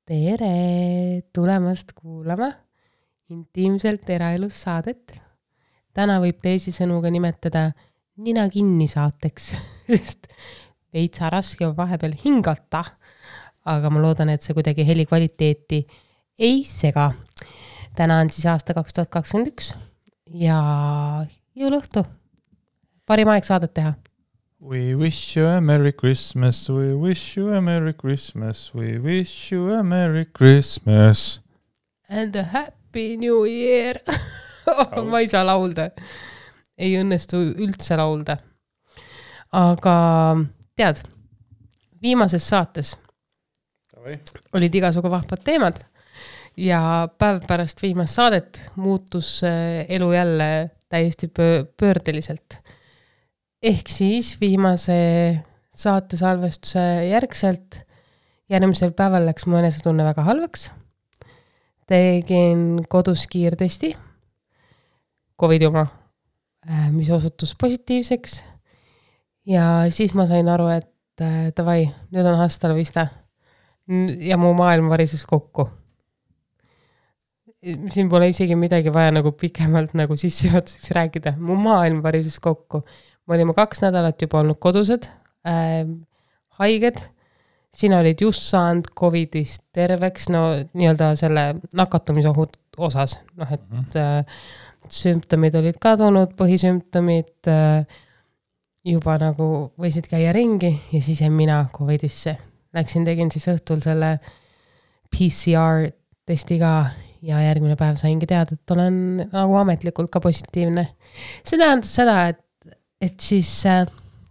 Tere tulemast kuulama intiimselt eraelus saadet. Täna võib teisisõnu ka nimetada nina kinni saateks, sest veitsa raske on vahepeal hingata, aga ma loodan, et see kuidagi heli kvaliteeti ei sega. Täna on siis aasta 2021 ja jõuluõhtu. Parim aeg saadet teha. We wish you a Merry Christmas, we wish you a Merry Christmas, we wish you a Merry Christmas. And a Happy New Year. Ma ei saa laulda. Ei õnnestu üldse laulda. Aga tead, viimases saates olid igasugu vahvad teemad ja päev pärast viimast saadet muutus elu jälle täiesti pöördeliselt. Ehk siis viimase saate salvestuse järgselt järgmisel päeval läks mu enesetunne väga halvaks. Tegin kodus kiirtesti, COVID oma, mis osutus positiivseks. Ja siis ma sain aru, et davai, nüüd on hasta la vista. Ja mu maailm varises kokku. Siin pole isegi midagi vaja nagu pikemalt nagu sissejuhatuseks rääkida. Mu maailm varises kokku. Me olime 2 nädalat juba olnud kodused, haiged. Sina olid just saanud COVIDist terveks, no nii-öelda selle nakatumisohud osas. Noh, et sümptomid olid kadunud, põhisümptomid juba nagu võisid käia ringi ja siis mina COVIDisse. Läksin, tegin siis õhtul selle PCR testi ka ja järgmine päev saingi teada, et olen nagu ametlikult ka positiivne. See tähendas seda, et siis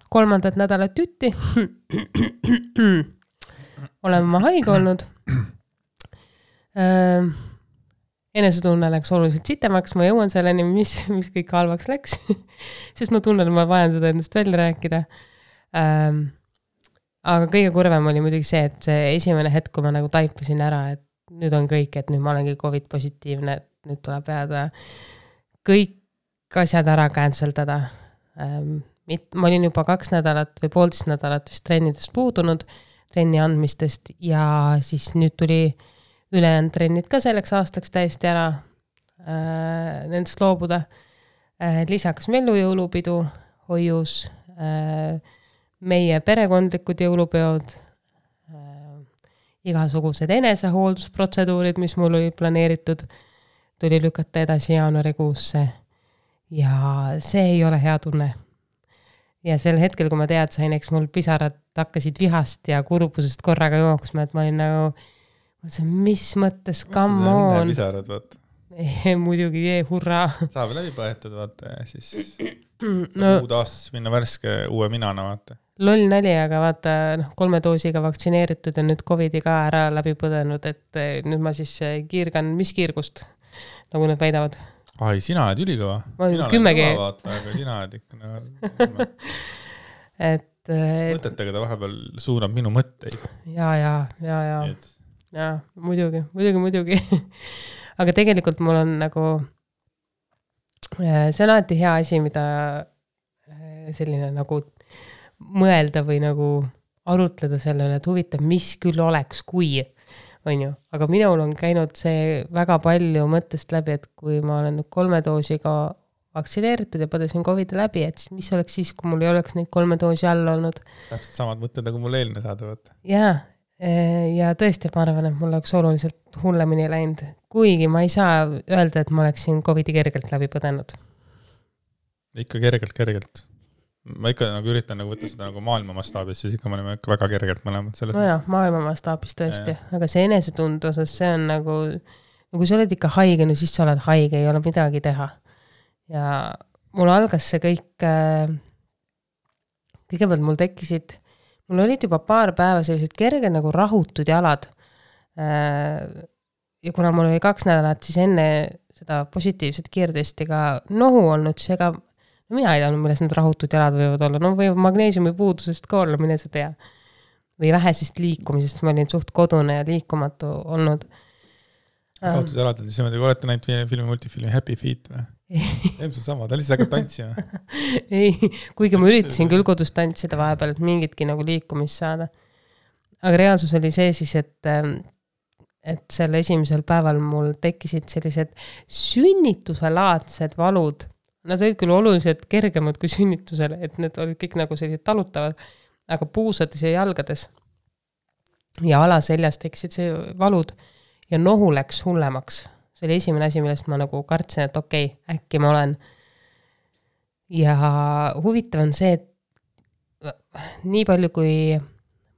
3. nädalat tütti olen ma haige olnud. Enesetunne läks oluliselt sitemaks, ma jõuan selleni, mis kõik halvaks läks, sest ma tunnen, et ma vajan seda endast välja rääkida. Aga kõige kurvem oli muidugi see, et see esimene hetk, kui ma nagu taipasin ära, et nüüd on kõik, et nüüd ma olengi COVID positiivne, et nüüd tuleb jääda kõik asjad ära canceldada. Ma olin juba 2 nädalat või 1,5 nädalat vist trennidest puudunud, trenni andmistest ja siis nüüd tuli ülejäänud trennid ka selleks aastaks täiesti ära nendest loobuda. Lisaks mellu jõulupidu, hoius, meie perekondlikud jõulupeod, igasugused enesehooldusprotseduurid, mis mul oli planeeritud, tuli lükata edasi jaanuarikuusse. Ja see ei ole hea tunne. Ja sel hetkel, kui ma sain, eks mul pisarad hakkasid vihast ja kurbusest korraga jooksma, et ma olin nagu, mis mõttes, come on. Pisarad, vaata. Muidugi, hurraa. Saab läbi põetud, vaata, ja siis uud aastas minna värske uue minana, vaata. Loll nali, aga vaata 3 doosiga vaktsineeritud ja nüüd COVID-i ka ära läbi põdenud, et nüüd ma siis kiirgan, mis kiirgust, nagu nad väidavad. Ai, sina oled ülikõva. Ma olen 10 vaata, aga sina oled ikka mõtetega ta vahepeal suunab minu mõtteid. Ja, muidugi. Aga tegelikult mul on nagu see on alati hea asi, mida selline nagu mõelda või nagu arutleda sellele, et huvitav, mis küll oleks, kui on ju. Aga minul on käinud see väga palju mõttest läbi, et kui ma olen 3 doosiga vaktsineeritud ja põdesin COVID-i läbi, et mis oleks siis, kui mul ei oleks neid 3 doosi all olnud. Täpselt samad mõtted, nagu mul eelne saada võtta. Ja tõesti, ma arvan, et mul oleks oluliselt hullemini läinud. Kuigi ma ei saa öelda, et ma oleksin COVID-i kergelt läbi põdenud. Ikka kergelt. Ma ikka nagu üritan nagu võtta seda nagu maailma mastaabis, siis ikka me oleme väga kergelt mõlemad selles. No jah, maailma mastaabis tõesti. Aga see enesetund osas, see on nagu kui sa oled ikka haige, no siis sa oled haige, ei ole midagi teha. Ja mul algas see kõik, kõigepealt mul olid juba paar päeva sellised kerged nagu rahutud jalad. Ja kuna mul oli 2 nädalat, siis enne seda positiivset kiirtestiga nohu olnud, siis ega mina ei teadnud, milles need rahutud jalad võivad olla. No või magneesiumi puudusest ka olla, mine sa tea. Või vähesest liikumisest, ma olin suht kodune ja liikumatu olnud. Rahutud jalad on siis niimoodi, kui olete näinud multifilmi Happy Feet või? Ilmselt sama, ta lihtsalt hakkab tantsima. Ei, kuigi ma üritasin küll kodus tantsida vahepeal, et mingitki nagu liikumist saada. Aga reaalsus oli see siis, et et selle esimesel päeval mul tekkisid sellised sünnitusselaadsed valud. Nad olid küll oluliselt kergemad kui sünnitusele, et need olid kõik nagu sellised talutavad, aga puusades ja jalgades ja alaseljas tekkisid see valud ja nohu läks hullemaks. See oli esimene asi, millest ma nagu kartsin, et okei, äkki ma olen. Ja huvitav on see, et nii palju kui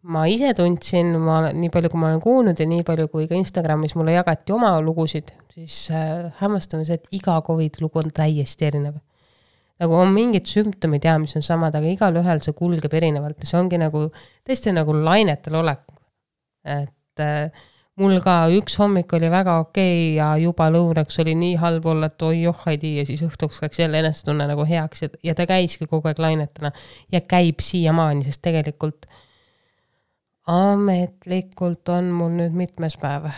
ma ise tundsin, nii palju kui ma olen kuulnud ja nii palju kui ka Instagramis mulle jagati oma lugusid, siis hämmastame see, et iga COVID lugu on täiesti erinev. Nagu on mingid sümptomid ja mis on samad, aga igal ühel see kulgeb erinevalt ja see ongi nagu tõesti nagu lainetel olek. Et mul ka üks hommik oli väga okei ja juba lõunaks oli nii halb olla, et oi johhaidi ja siis õhtuks läks jälle enesetunne nagu heaks ja ta käiski kogu aeg lainetena ja käib siiamaani, sest tegelikult ametlikult on mul nüüd mitmes päev.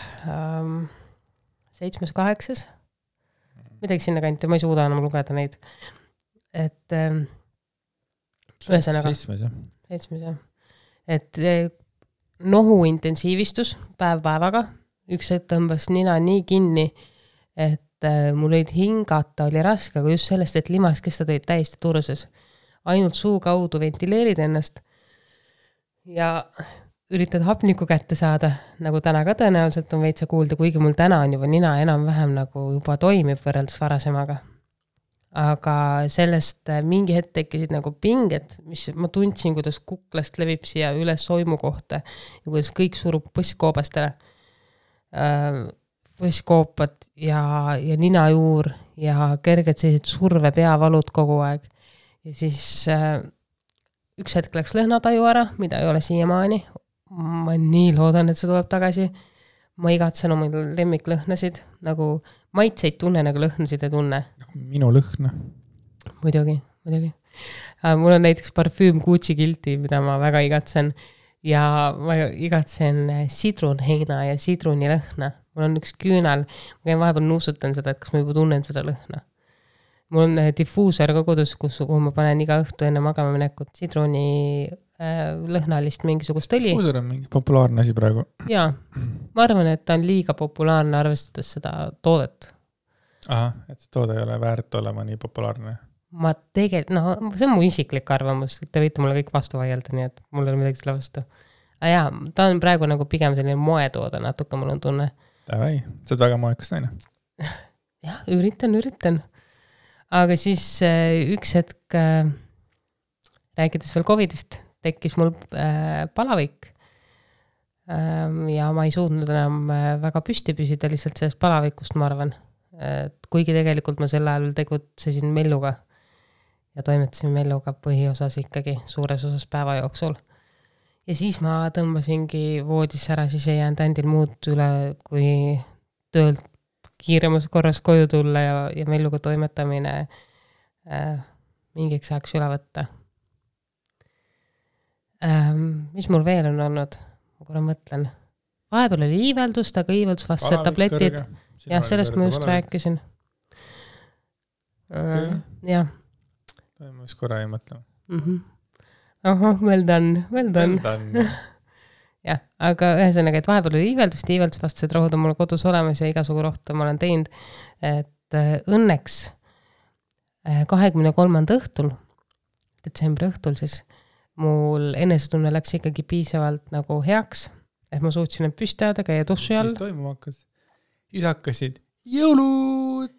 7., 8. Midagi sinna kanti, ma ei suuda enam lugeda neid. Et ühesõnaga 7. Et nohu intensiivistus päev-päevaga. Üks hetk tõmbas nina nii kinni, et mul olid hingata, oli raske, aga just sellest, et limaskestad olid täiesti turses. Ainult suu kaudu ventileerid ennast ja üritad hapniku kätte saada, nagu täna ka tõenäoliselt on veitsa kuulda, kuigi mul täna on juba nina enam-vähem nagu juba toimib võrreldes varasemaga. Aga sellest mingi hetk tekkisid nagu pinged, mis ma tundsin, kuidas kuklast levib siia üles soimu kohta ja kuidas kõik surub põsskoobastele. Põsskoopad ja ninajuur ja kerged sellised surve peavalud kogu aeg. Ja siis üks hetk läks lõhnataju ära, mida ei ole siiamaani. Ma nii loodan, et see tuleb tagasi. Ma igatsen oma lemmiklõhnasid, nagu maitseid tunne, nagu lõhnasid ei tunne. Minu lõhna. Muidugi. Mul on näiteks parfüüm Gucci Guilty, mida ma väga igatsen. Ja ma igatsen sidrunheina ja sidrunilõhna. Mul on üks küünal. Ma käin vahepeal nuusutan seda, et kas ma juba tunnen seda lõhna. Mul on diffuusor ka kodus, kuhu ma panen iga õhtu enne magama minekut sidruni lõhnalist mingisugust õli. Diffuusor on mingi populaarne asi praegu. Jaa, ma arvan, et ta on liiga populaarne arvestades seda toodet. Aha, et see toode ei ole väärt olema nii populaarne. Ma tegelikult, see on mu isiklik arvamus, te võite mulle kõik vastu vaielda, nii et mul ei ole midagi selle vastu. Aga jaa, ta on praegu nagu pigem selline moetoode, natuke mul on tunne. Davai, see on väga moekas naine. Jah, üritan. Aga siis üks hetk rääkides veel COVIDist, tekkis mul palavik ja ma ei suutnud enam väga püsti püsida lihtsalt sellest palavikust, ma arvan. Kuigi tegelikult ma sel ajal tegutsesin melluga ja toimetasin melluga põhiosas ikkagi suures osas päeva jooksul. Ja siis ma tõmbasingi voodis ära, siis ei jäänud ändil muud üle, kui töölt kiiremas korras koju tulla ja melluga toimetamine mingiks ajaks üle võtta. Mis mul veel on olnud? Ma korra mõtlen. Vahepeal oli iiveldust, aga iiveldusvastased tabletid. Jah, sellest ma just rääkisin. Jah. Ma just korra ei mõtle. Well done. Jah, aga ühesõnaga, et vahepeal oli iiveldusvastased rohud on mul kodus olemas ja igasugu rohtu ma olen teinud. Et õnneks 23. õhtul, detsembri õhtul siis, mul enesetunne läks ikkagi piisavalt nagu heaks, et ma suutsin end püstada, käia duši all. Siis toimuma hakkas. Siis hakkasid jõulud.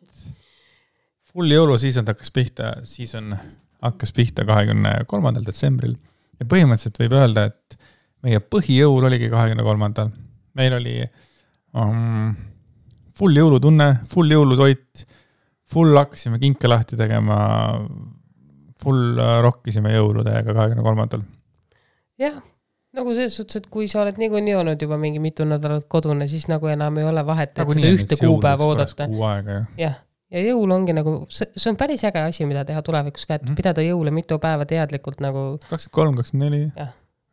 Full jõuluseason hakkas pihta 23. detsembril. Ja põhimõtteliselt võib öelda, et meie põhijõul oligi 23. Meil oli full jõulutunne, full jõulutoit, full hakkasime kinke lahti tegema, full rokkisime jõuludega 23. Jah, nagu selles suhtes, et kui sa oled nii olnud juba mingi mitu nädalat kodune, siis nagu enam ei ole vahet, et seda ühte kuupäeva oodata. Ja jõul ongi nagu, see on päris äge asi, mida teha tulevikus ka, et pidada jõule mitu päeva teadlikult nagu 23, 24,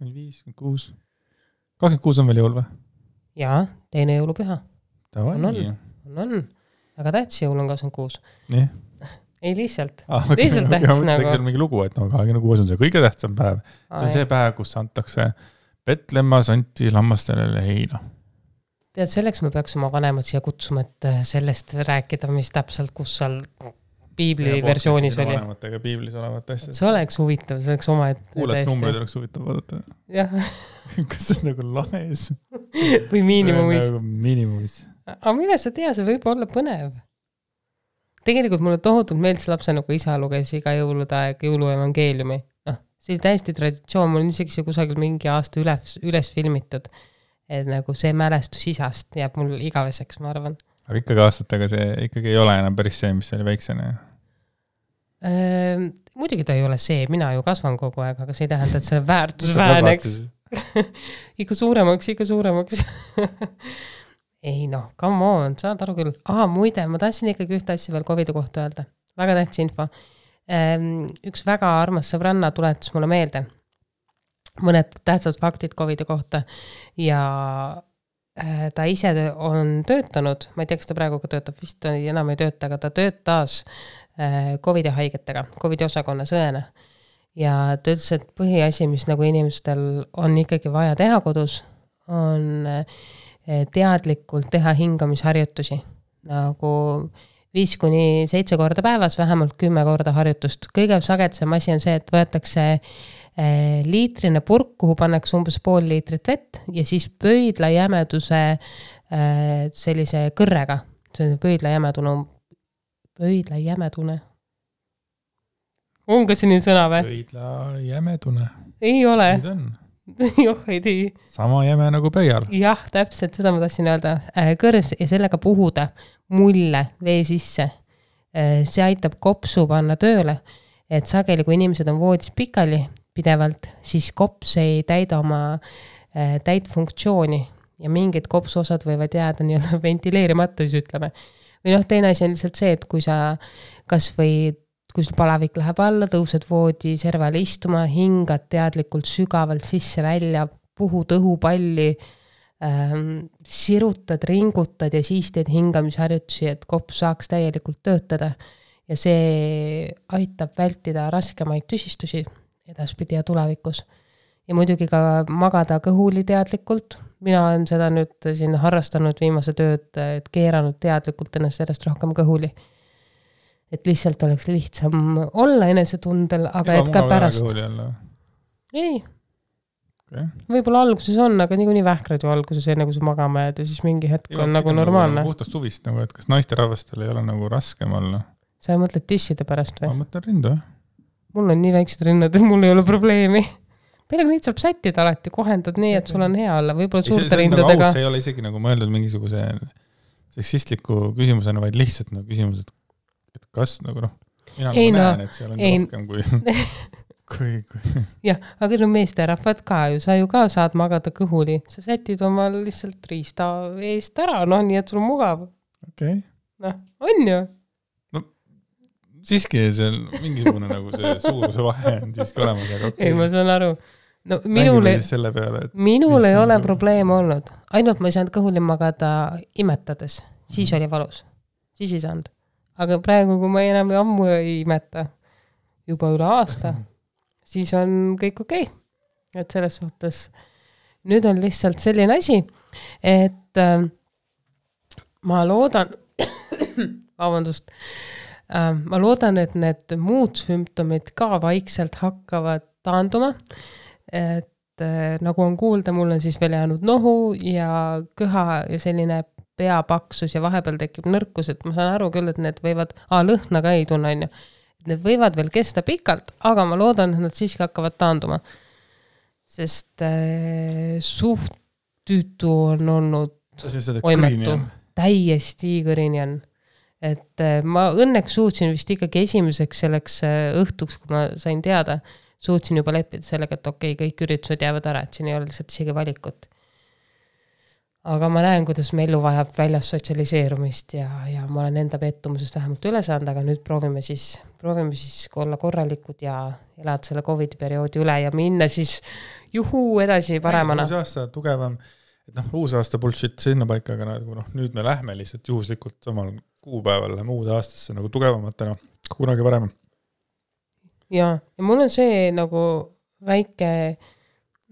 25, 26. 26 on veel jõul või? Jaa, teine jõulupüha. On. Aga tähtis jõul on 26. Nii. Ei lihtsalt. Lihtsalt tähtis nagu. Ma mõtlesin mingi lugu, et 26 on see kõige tähtsam päev. See on see päev, kus antakse Petlemma santi lammastele heina. Tead, selleks me peaks oma vanemad siia kutsuma, et sellest rääkida, mis täpselt, kus seal piibli versioonis oli. Vanematega piiblis olevat asjad. See oleks huvitav, see oleks oma, et kuuled numbreid oleks huvitav vaadata. Jah. Kas see on nagu lahes? Või miinimumis. Nagu miinimumis. Aga mine sa tea, see võib olla põnev. Tegelikult mulle tohutult meeldis lapse nagu isa luges iga jõulude aeg jõuluevangeeliumi. See oli täiesti traditsioon, mul on isegi see kusagil mingi aasta üles filmitud. Et nagu see mälestus isast jääb mul igaveseks, ma arvan. Aga ikkagi aastatega see ikkagi ei ole enam päris see, mis oli väiksena. Muidugi ta ei ole see, mina ju kasvan kogu aeg, aga see ei tähenda, et see väärtus vääneks. ikka suuremaks. Ei noh, come on, saad aru küll. Muide, ma tahtsin ikkagi ühte asja veel COVID-i kohta öelda. Väga tähtis info. Üks väga armas sõbranna tuletas mulle meelde mõned tähtsad faktid COVID-i kohta ja ta ise on töötanud, ma ei tea, kas ta praegu ka töötab, vist enam ei tööta, aga ta töötas COVID-i haigetega, COVID-i osakonnas õena. Ja ta ütles, et põhiasi, mis nagu inimestel on ikkagi vaja teha kodus, on teadlikult teha hingamisharjutusi. Nagu 5-7 korda päevas, vähemalt 10 korda harjutust. Kõige sagedasem asi on see, et võetakse liitrine purk, kuhu pannakse umbes pool liitrit vett ja siis pöidla jämeduse sellise kõrrega. See on pöidla jämedune. On ka selline sõna või? Pöidla jämedune. Ei ole. Nüüd on. Joh, ei tii. Sama jäme nagu pöial. Jah, täpselt, seda ma tahtsin öelda. Kõrs ja sellega puhuda mulle vee sisse. See aitab kopsu panna tööle, et sageli, kui inimesed on voodis pikali pidevalt, siis kops ei täida oma täit funktsiooni ja mingid kopsuosad võivad jääda nii-öelda ventileerimata, siis ütleme. Või teine asi on lihtsalt see, et kui sa kas või kui sul palavik läheb alla, tõused voodi servale istuma, hingad teadlikult sügavalt sisse välja, puhud õhupalli, sirutad, ringutad ja siis teed hingamisharjutusi, et kops saaks täielikult töötada. Ja see aitab vältida raskemaid tüsistusi edaspidi ja tulevikus. Ja muidugi ka magada kõhuli teadlikult. Mina olen seda nüüd siin harrastanud viimase tööd, et keeranud teadlikult ennast järjest rohkem kõhuli. Et lihtsalt oleks lihtsam olla enesetundel, aga et ka pärast. Ei. Okay. Võib-olla alguses on, aga nii vähkrad ju alguses enne, kui sa magama jääd ja siis mingi hetk on nagu normaalne. Puhtast suvist, nagu, et kas naiste rahvastel ei ole nagu raskem olla? Sa mõtled tisside pärast või? Ma mõtlen rindu. Mul on nii väiksed rinnad, et mul ei ole probleemi. Peale neid saab sättida alati, kohendad nii, et sul on hea olla. Võib-olla suurte rindadega. See ei ole isegi nagu mõeldud mingisuguse seksistliku küsimusena, vaid lihtsalt nagu küsimus, et kas nagu mina näen, et seal on rohkem kui jah, aga meeste rahvad ka ju, sa ju ka saad magada kõhuli. Sa sätid oma lihtsalt riista eest ära, nii et sul on mugav. Okay. On ju. Siiski seal mingisugune nagu see suuruse vahe on siiski olemas. Aga okay. Ei, ma saan aru. Minul ei ole probleem olnud. Ainult ma ei saanud kõhuli magada imetades. Siis oli valus. Siis ei saanud. Aga praegu, kui ma enam ammu ei imeta, juba üle aasta, siis on kõik okei. Et selles suhtes nüüd on lihtsalt selline asi, et ma loodan ma loodan, et need muud sümptomid ka vaikselt hakkavad taanduma, et nagu on kuulda, mul on siis veel jäänud nohu ja köha ja selline peapaksus ja vahepeal tekib nõrkus, et ma saan aru küll, et need võivad, lõhna ka ei tunne, need võivad veel kesta pikalt, aga ma loodan, et nad siiski hakkavad taanduma. Sest suht tüütu on olnud oimetu. Täiesti kõrini on. Et ma õnneks suutsin vist ikkagi esimeseks selleks õhtuks, kui ma sain teada, suutsin juba leppida sellega, et okei, kõik üritused jäävad ära, et siin ei ole lihtsalt isegi valikut. Aga ma näen, kuidas me elu vajab väljas sotsialiseerumist ja ma olen enda pettumusest vähemalt üle saanud, aga nüüd proovime siis olla korralikud ja elada selle COVID perioodi üle ja minna siis edasi paremana. Uus aasta tugevam, et uus aasta bullshit sinna paika, aga nüüd me lähme lihtsalt juhuslikult samal kuupäeval läheme uude aastasse nagu tugevamatena, kunagi varem. Ja mul on see nagu väike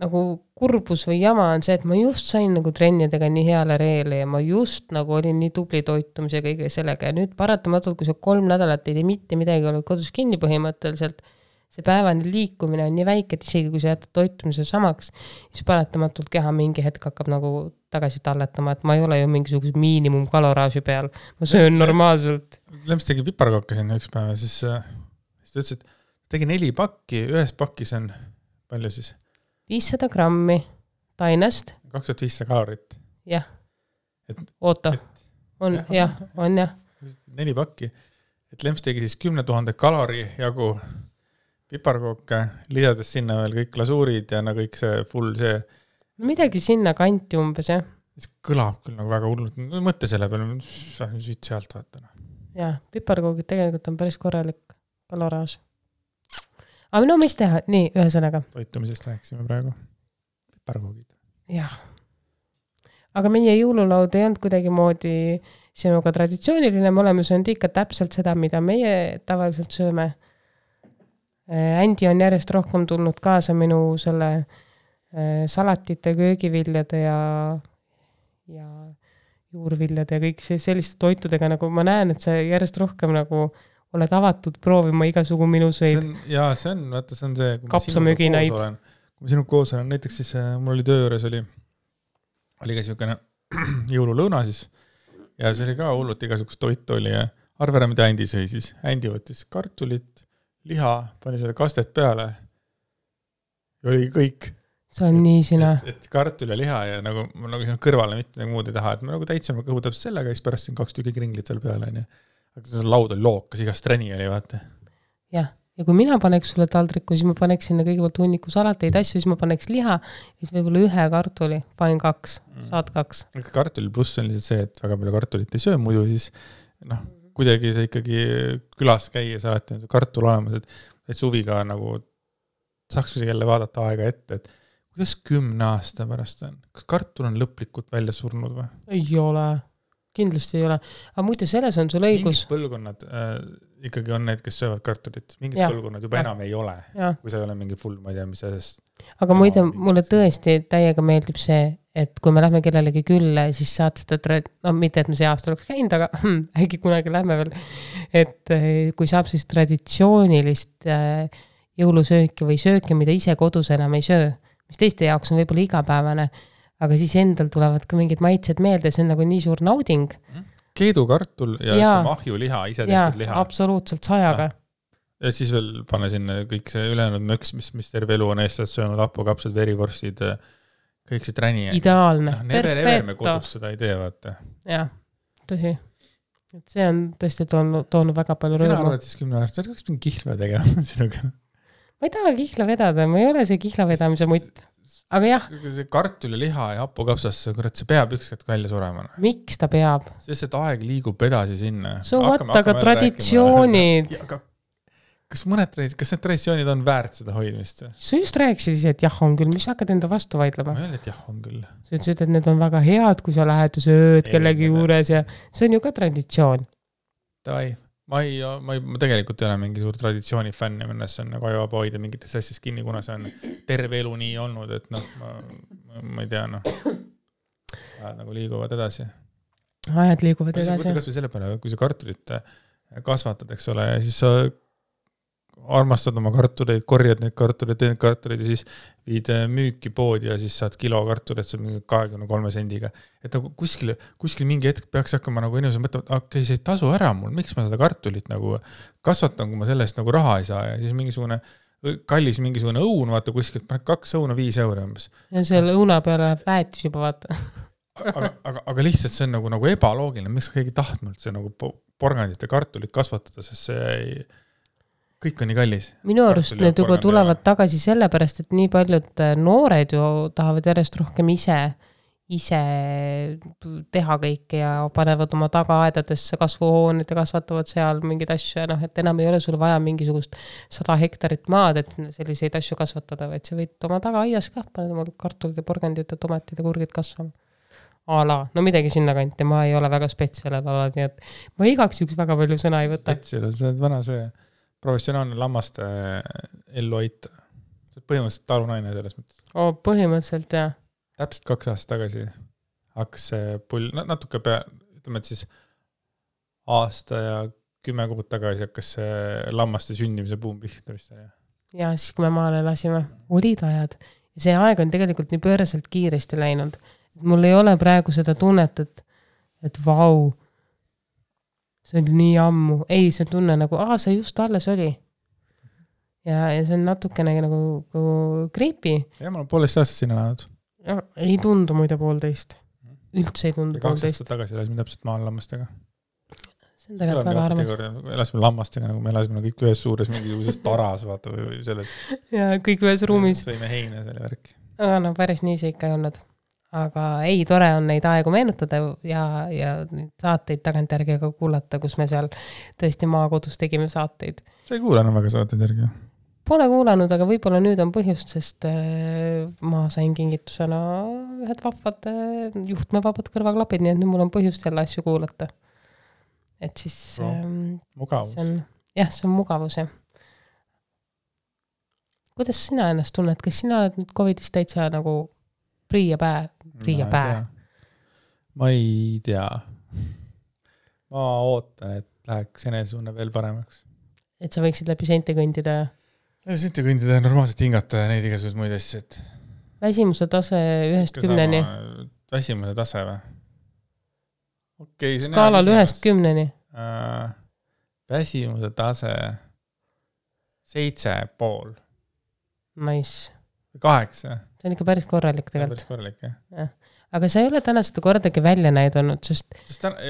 nagu kurbus või jama on see, et ma just sain nagu trennidega nii heale reele ja ma just nagu olin nii tubli toitumise ja kõige sellega ja nüüd paratamatult, kui sa 3 nädalat ei tee mitte midagi, oled kodus kinni põhimõtteliselt, see päevane liikumine on nii väike, et isegi kui sa jätad toitumise samaks, siis paratamatult keha mingi hetk hakkab nagu tagasi talletama, et ma ei ole ju mingisuguse miinimumkaloraaži peal, ma söön normaalselt. Lemps tegi piparkooke sinna üks päev ja siis ta ütles, et tegi 4 pakki, ühes pakis on palju siis? 500 grammi tainest. 2500 kalorit. Jah, oota, on jah. 4 pakki, et Lemps tegi siis 10 000 kalori jagu piparkooke, lisades sinna veel kõik lasuurid ja no kõik see full see. Midagi sinna kanti umbes, jah. See kõlab küll nagu väga hullult, mõtte selle peale, siit sealt vaata. Jah, piparkoogid tegelikult on päris korralik kaloraaž. Aga no mis teha? Nii, ühesõnaga. Toitumisest rääkisime praegu. Piparkoogid. Jah. Aga meie jõululaud ei olnud kuidagi moodi sinuga traditsiooniline, me oleme söönud ikka täpselt seda, mida meie tavaliselt sööme. Andy on järjest rohkem tulnud kaasa minu selle salatite, köögiviljade ja juurviljade ja kõik selliste toitudega, nagu ma näen, et see järjest rohkem nagu oled avatud proovima igasugu minuseid. See on, kapsamöginaid. Kui ma sinuga koos olen, näiteks siis mul oli töö juures oli ka siukene jõululõuna siis ja see oli ka hullult igasugust toitu oli ja arvera, mida Andy sõi siis. Andy võttis kartulit, liha, pani selle kastet peale ja oli kõik. See on nii sina. Et kartul ja liha ja nagu siin kõrvale mitte muud ei taha, et ma nagu täitsime kõhu täpselt sellega ja siis pärast siin 2 tükki kringlit seal peale. Aga see laud oli lookas, igast treni oli, vaata. Jah, ja kui mina paneks sulle taldriku, siis ma paneks sinna kõigepealt hunniku salateid asju, siis ma paneks liha ja siis võib-olla 1 kartuli, panin 2, saad 2. Kartuli pluss on lihtsalt see, et väga palju kartulit ei söö, muidu siis kuidagi see ikkagi külas käia, sa alati on see kartul olemas, et suviga nagu saaks jälle vaadata aega ette, et kuidas 10 aasta pärast on? Kas kartul on lõplikult välja surnud või? Ei ole. Kindlasti ei ole. Aga muide, selles on sul õigus. Mingid põlvkonnad ikkagi on need, kes söövad kartulit. Mingid põlvkonnad juba enam ei ole, kui sa ei ole mingi full, ma ei tea, mis asjast. Aga muide, mulle tõesti täiega meeldib see, et kui me lähme kellelegi külle, siis saad seda, mitte et me see aasta oleks käinud, aga äkki kunagi lähme veel, et kui saab siis traditsioonilist jõulusööki või sööki, mida ise kodus enam ei söö, mis teiste jaoks on võib-olla igapäevane, aga siis endal tulevad ka mingid maitsed meelde, see on nagu nii suur nauding. Keedukartul ja ahjuliha, ise tehtud liha. Absoluutselt 100-ga. Ja siis veel pane sinna kõik see ülejäänud möks, mis terve elu on eestlased söönud, hapukapsad, verivorstid, kõik see träni. Ideaalne, perfetto. Me kodus seda ei tee, vaata. Jah, tõsi. Et see on tõesti toonud väga palju rõõmu. Sina arvad siis 10 aastat, kas mingi kihla tegema sinuga? Ma ei taha kihla vedada, ma ei ole see kihla vedamise mutt. Aga jah. See kartul ja liha ja hapukapsas, kurat, see peab ükskord välja surema. Miks ta peab? Sest et aeg liigub edasi sinna. Aga traditsioonid. Kas need traditsioonid on väärt seda hoidmist? Sa just rääkisid ise, et jah on küll, mis hakkad enda vastu vaidlema? Ma ei ole, et jah on küll. Sa ütlesid, et need on väga head, kui sa lähed ja sööd kellegi juures ja see on ju ka traditsioon. Davai. Ma tegelikult ei ole mingi suur traditsiooni fänn ja minnes on nagu ajaba hoida mingites asjast kinni, kuna see on terve elu nii olnud, et ma ei tea, ajad nagu liiguvad edasi. Ajad liiguvad edasi. Võtta kas või selle peale, kui sa kartulit kasvatad, eks ole, ja siis sa armastad oma kartuleid, korjad neid kartuleid, teed kartuleid ja siis viid müüki poodi ja siis saad kilo kartuleid, see on mingi 23 sendiga. Et nagu kuskil mingi hetk peaks hakkama nagu inimesed mõtlema, et okei, see ei tasu ära mul, miks ma seda kartulit nagu kasvatan, kui ma sellest nagu raha ei saa ja siis mingisugune kallis mingisugune õun, vaata kuskilt, 2 õuna 5 euro umbes. Ja selle õuna peale läheb väetis juba, vaata. aga lihtsalt see on nagu ebaloogiline, miks keegi tahtnud see nagu porgandite kartulit kasvatada, sest see ei kõik on nii kallis. Minu arust need juba tulevad tagasi sellepärast, et nii paljud noored ju tahavad järjest rohkem ise teha kõike ja panevad oma tagaaedadesse kasvuhooned ja kasvatavad seal mingeid asju ja et enam ei ole sul vaja mingisugust 100 hektarit maad, et selliseid asju kasvatada, vaid sa võid oma tagaaias ka panema kartulid ja porgandid ja tomatid ja kurgid kasvama. No midagi sinna kanti, ma ei ole väga spetsialel ala, nii et ma igaks üks väga palju sõna ei võta. Spetsialel, see on vana see professionaalne lammaste ellu hoita. põhimõtteliselt talunaine selles mõttes. Põhimõtteliselt, jah. Täpselt 2 aastat tagasi hakkas see pull, natuke ütleme, et siis aasta ja 10 kuud tagasi hakkas see lammaste sündimise buum pihta vist. Ja siis, kui me maale lasime, olid ajad. Ja see aeg on tegelikult nii pööraselt kiiresti läinud. Mul ei ole praegu seda tunnet, et vau, see oli nii ammu. Ei, see tunne nagu, see just alles oli. Ja see on natukene nagu creepy. Ja ma olen 1,5 aastat sinna läinud. Ei tundu muide 1,5. Üldse ei tundu 2 1,5. aastat tagasi elasime täpselt maal lammastega. See on tegelikult väga armas. Elasime lammastega, nagu me elasime kõik ühes suures mingisuguses taras, vaata, või selles. Ja kõik ühes ruumis. Sõime heine selle värki. Aga no päris nii see ikka ei olnud. Aga ei, tore on neid aegu meenutada ja saateid tagantjärgi ka kuulata, kus me seal tõesti maakodus tegime saateid. Sa ei kuulanud väga saateid järgi? Pole kuulanud, aga võib-olla nüüd on põhjust, sest ma sain kingitusena ühed vahvad juhtmevabad kõrvaklapid, nii et nüüd mul on põhjust jälle asju kuulata. Et siis mugavus. See on mugavus, jah. Kuidas sina ennast tunned? Kas sina oled nüüd COVIDist täitsa nagu priia pää? Ma ei tea. Ma ootan, et läheks enesetunne veel paremaks. Et sa võiksid läbi sente kõndida? Sente kõndida, normaalselt hingata ja neid igasugused muid asju. Väsimuse tase 1-10-ni? Väsimuse tase või? Okay, skaalal 1-10-ni? Väsimuse tase 7,5. Nice. 8. See on ikka päris korralik tegelikult. Päris korralik, jah. Aga sa ei ole täna seda kordagi välja näidanud, sest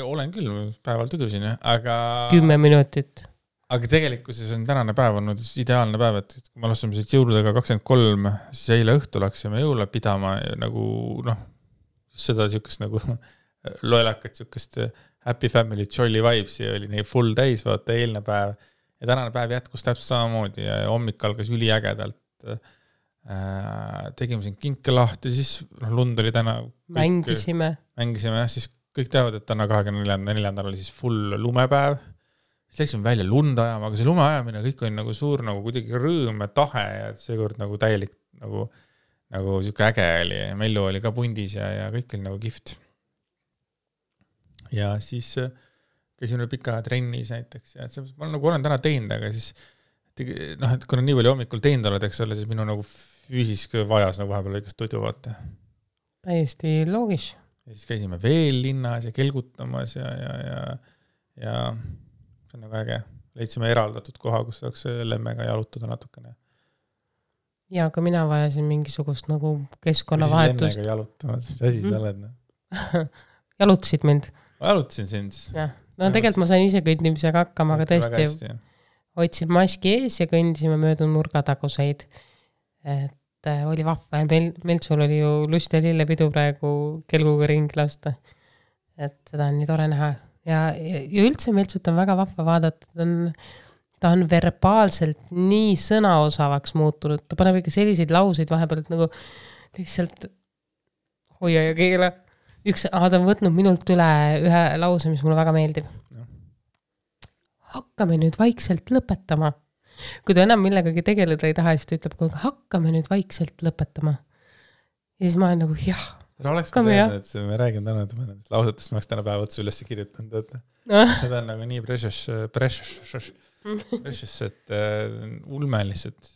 olen küll, päeval tudusin, aga 10 minutit. Aga tegelikkuses on tänane päev olnud ideaalne päev, et kui me lasime siit jõuludega 23, siis eile õhtu läksime jõule pidama nagu, seda siukest nagu loelakat siukest happy family jolly vibes ja oli nii full täis, vaata eilne päev ja tänane päev jätkus täpselt samamoodi ja hommik algas üliägedalt. Tegime siin kinke lahti, siis lund oli täna mängisime, siis kõik teavad, et täna 24. oli siis full lumepäev. Siis läksime välja lund ajama, aga see lume ajamine kõik oli nagu suur, nagu kuidagi rõõm ja tahe ja seekord nagu täielik nagu siuke äge oli. Mellu oli ka pundis ja kõik oli nagu kihvt. Ja siis käisime pika trennis näiteks ja ma nagu olen täna teinud, aga siis et kui on nii palju hommikul teinud oled, eks ole, siis minu nagu füüsisk vajas nagu vahepeal õigest tudu vaata. Täiesti loogis. Ja siis käisime veel linnas ja kelgutamas ja see on nagu äge. Leidsime eraldatud koha, kus saaks lemmega jalutada natukene. Ja aga mina vajasin mingisugust nagu keskkonnavahetust. Lemmega jalutamas, mis asi sa oled? Jalutasid mind? Ma jalutasin sind. No tegelikult ma sain ise kõndimisega hakkama, aga tõesti hoidsin maski ees ja kõndisime möödu nurgataguseid. Et oli vahva ja meil sul oli ju lust ja lillepidu praegu kelguga ring lasta. Et seda on nii tore näha. Ja üldse Meltsut on väga vahva vaadata. Ta on verbaalselt nii sõnaosavaks muutunud. Ta paneb ikka selliseid lauseid vahepeal, et nagu lihtsalt hoia ja keela. Ta on võtnud minult üle ühe lause, mis mulle väga meeldib. Hakkame nüüd vaikselt lõpetama. Kui ta enam millegagi tegeleda ei taha, siis ta ütleb, et hakkame nüüd vaikselt lõpetama. Ja siis ma olen nagu, jah. Oleks ka teada, et me räägime täna lausetest, ma oleks täna päev otsa üles kirjutanud. Seda on nagu nii precious, et ulme lihtsalt.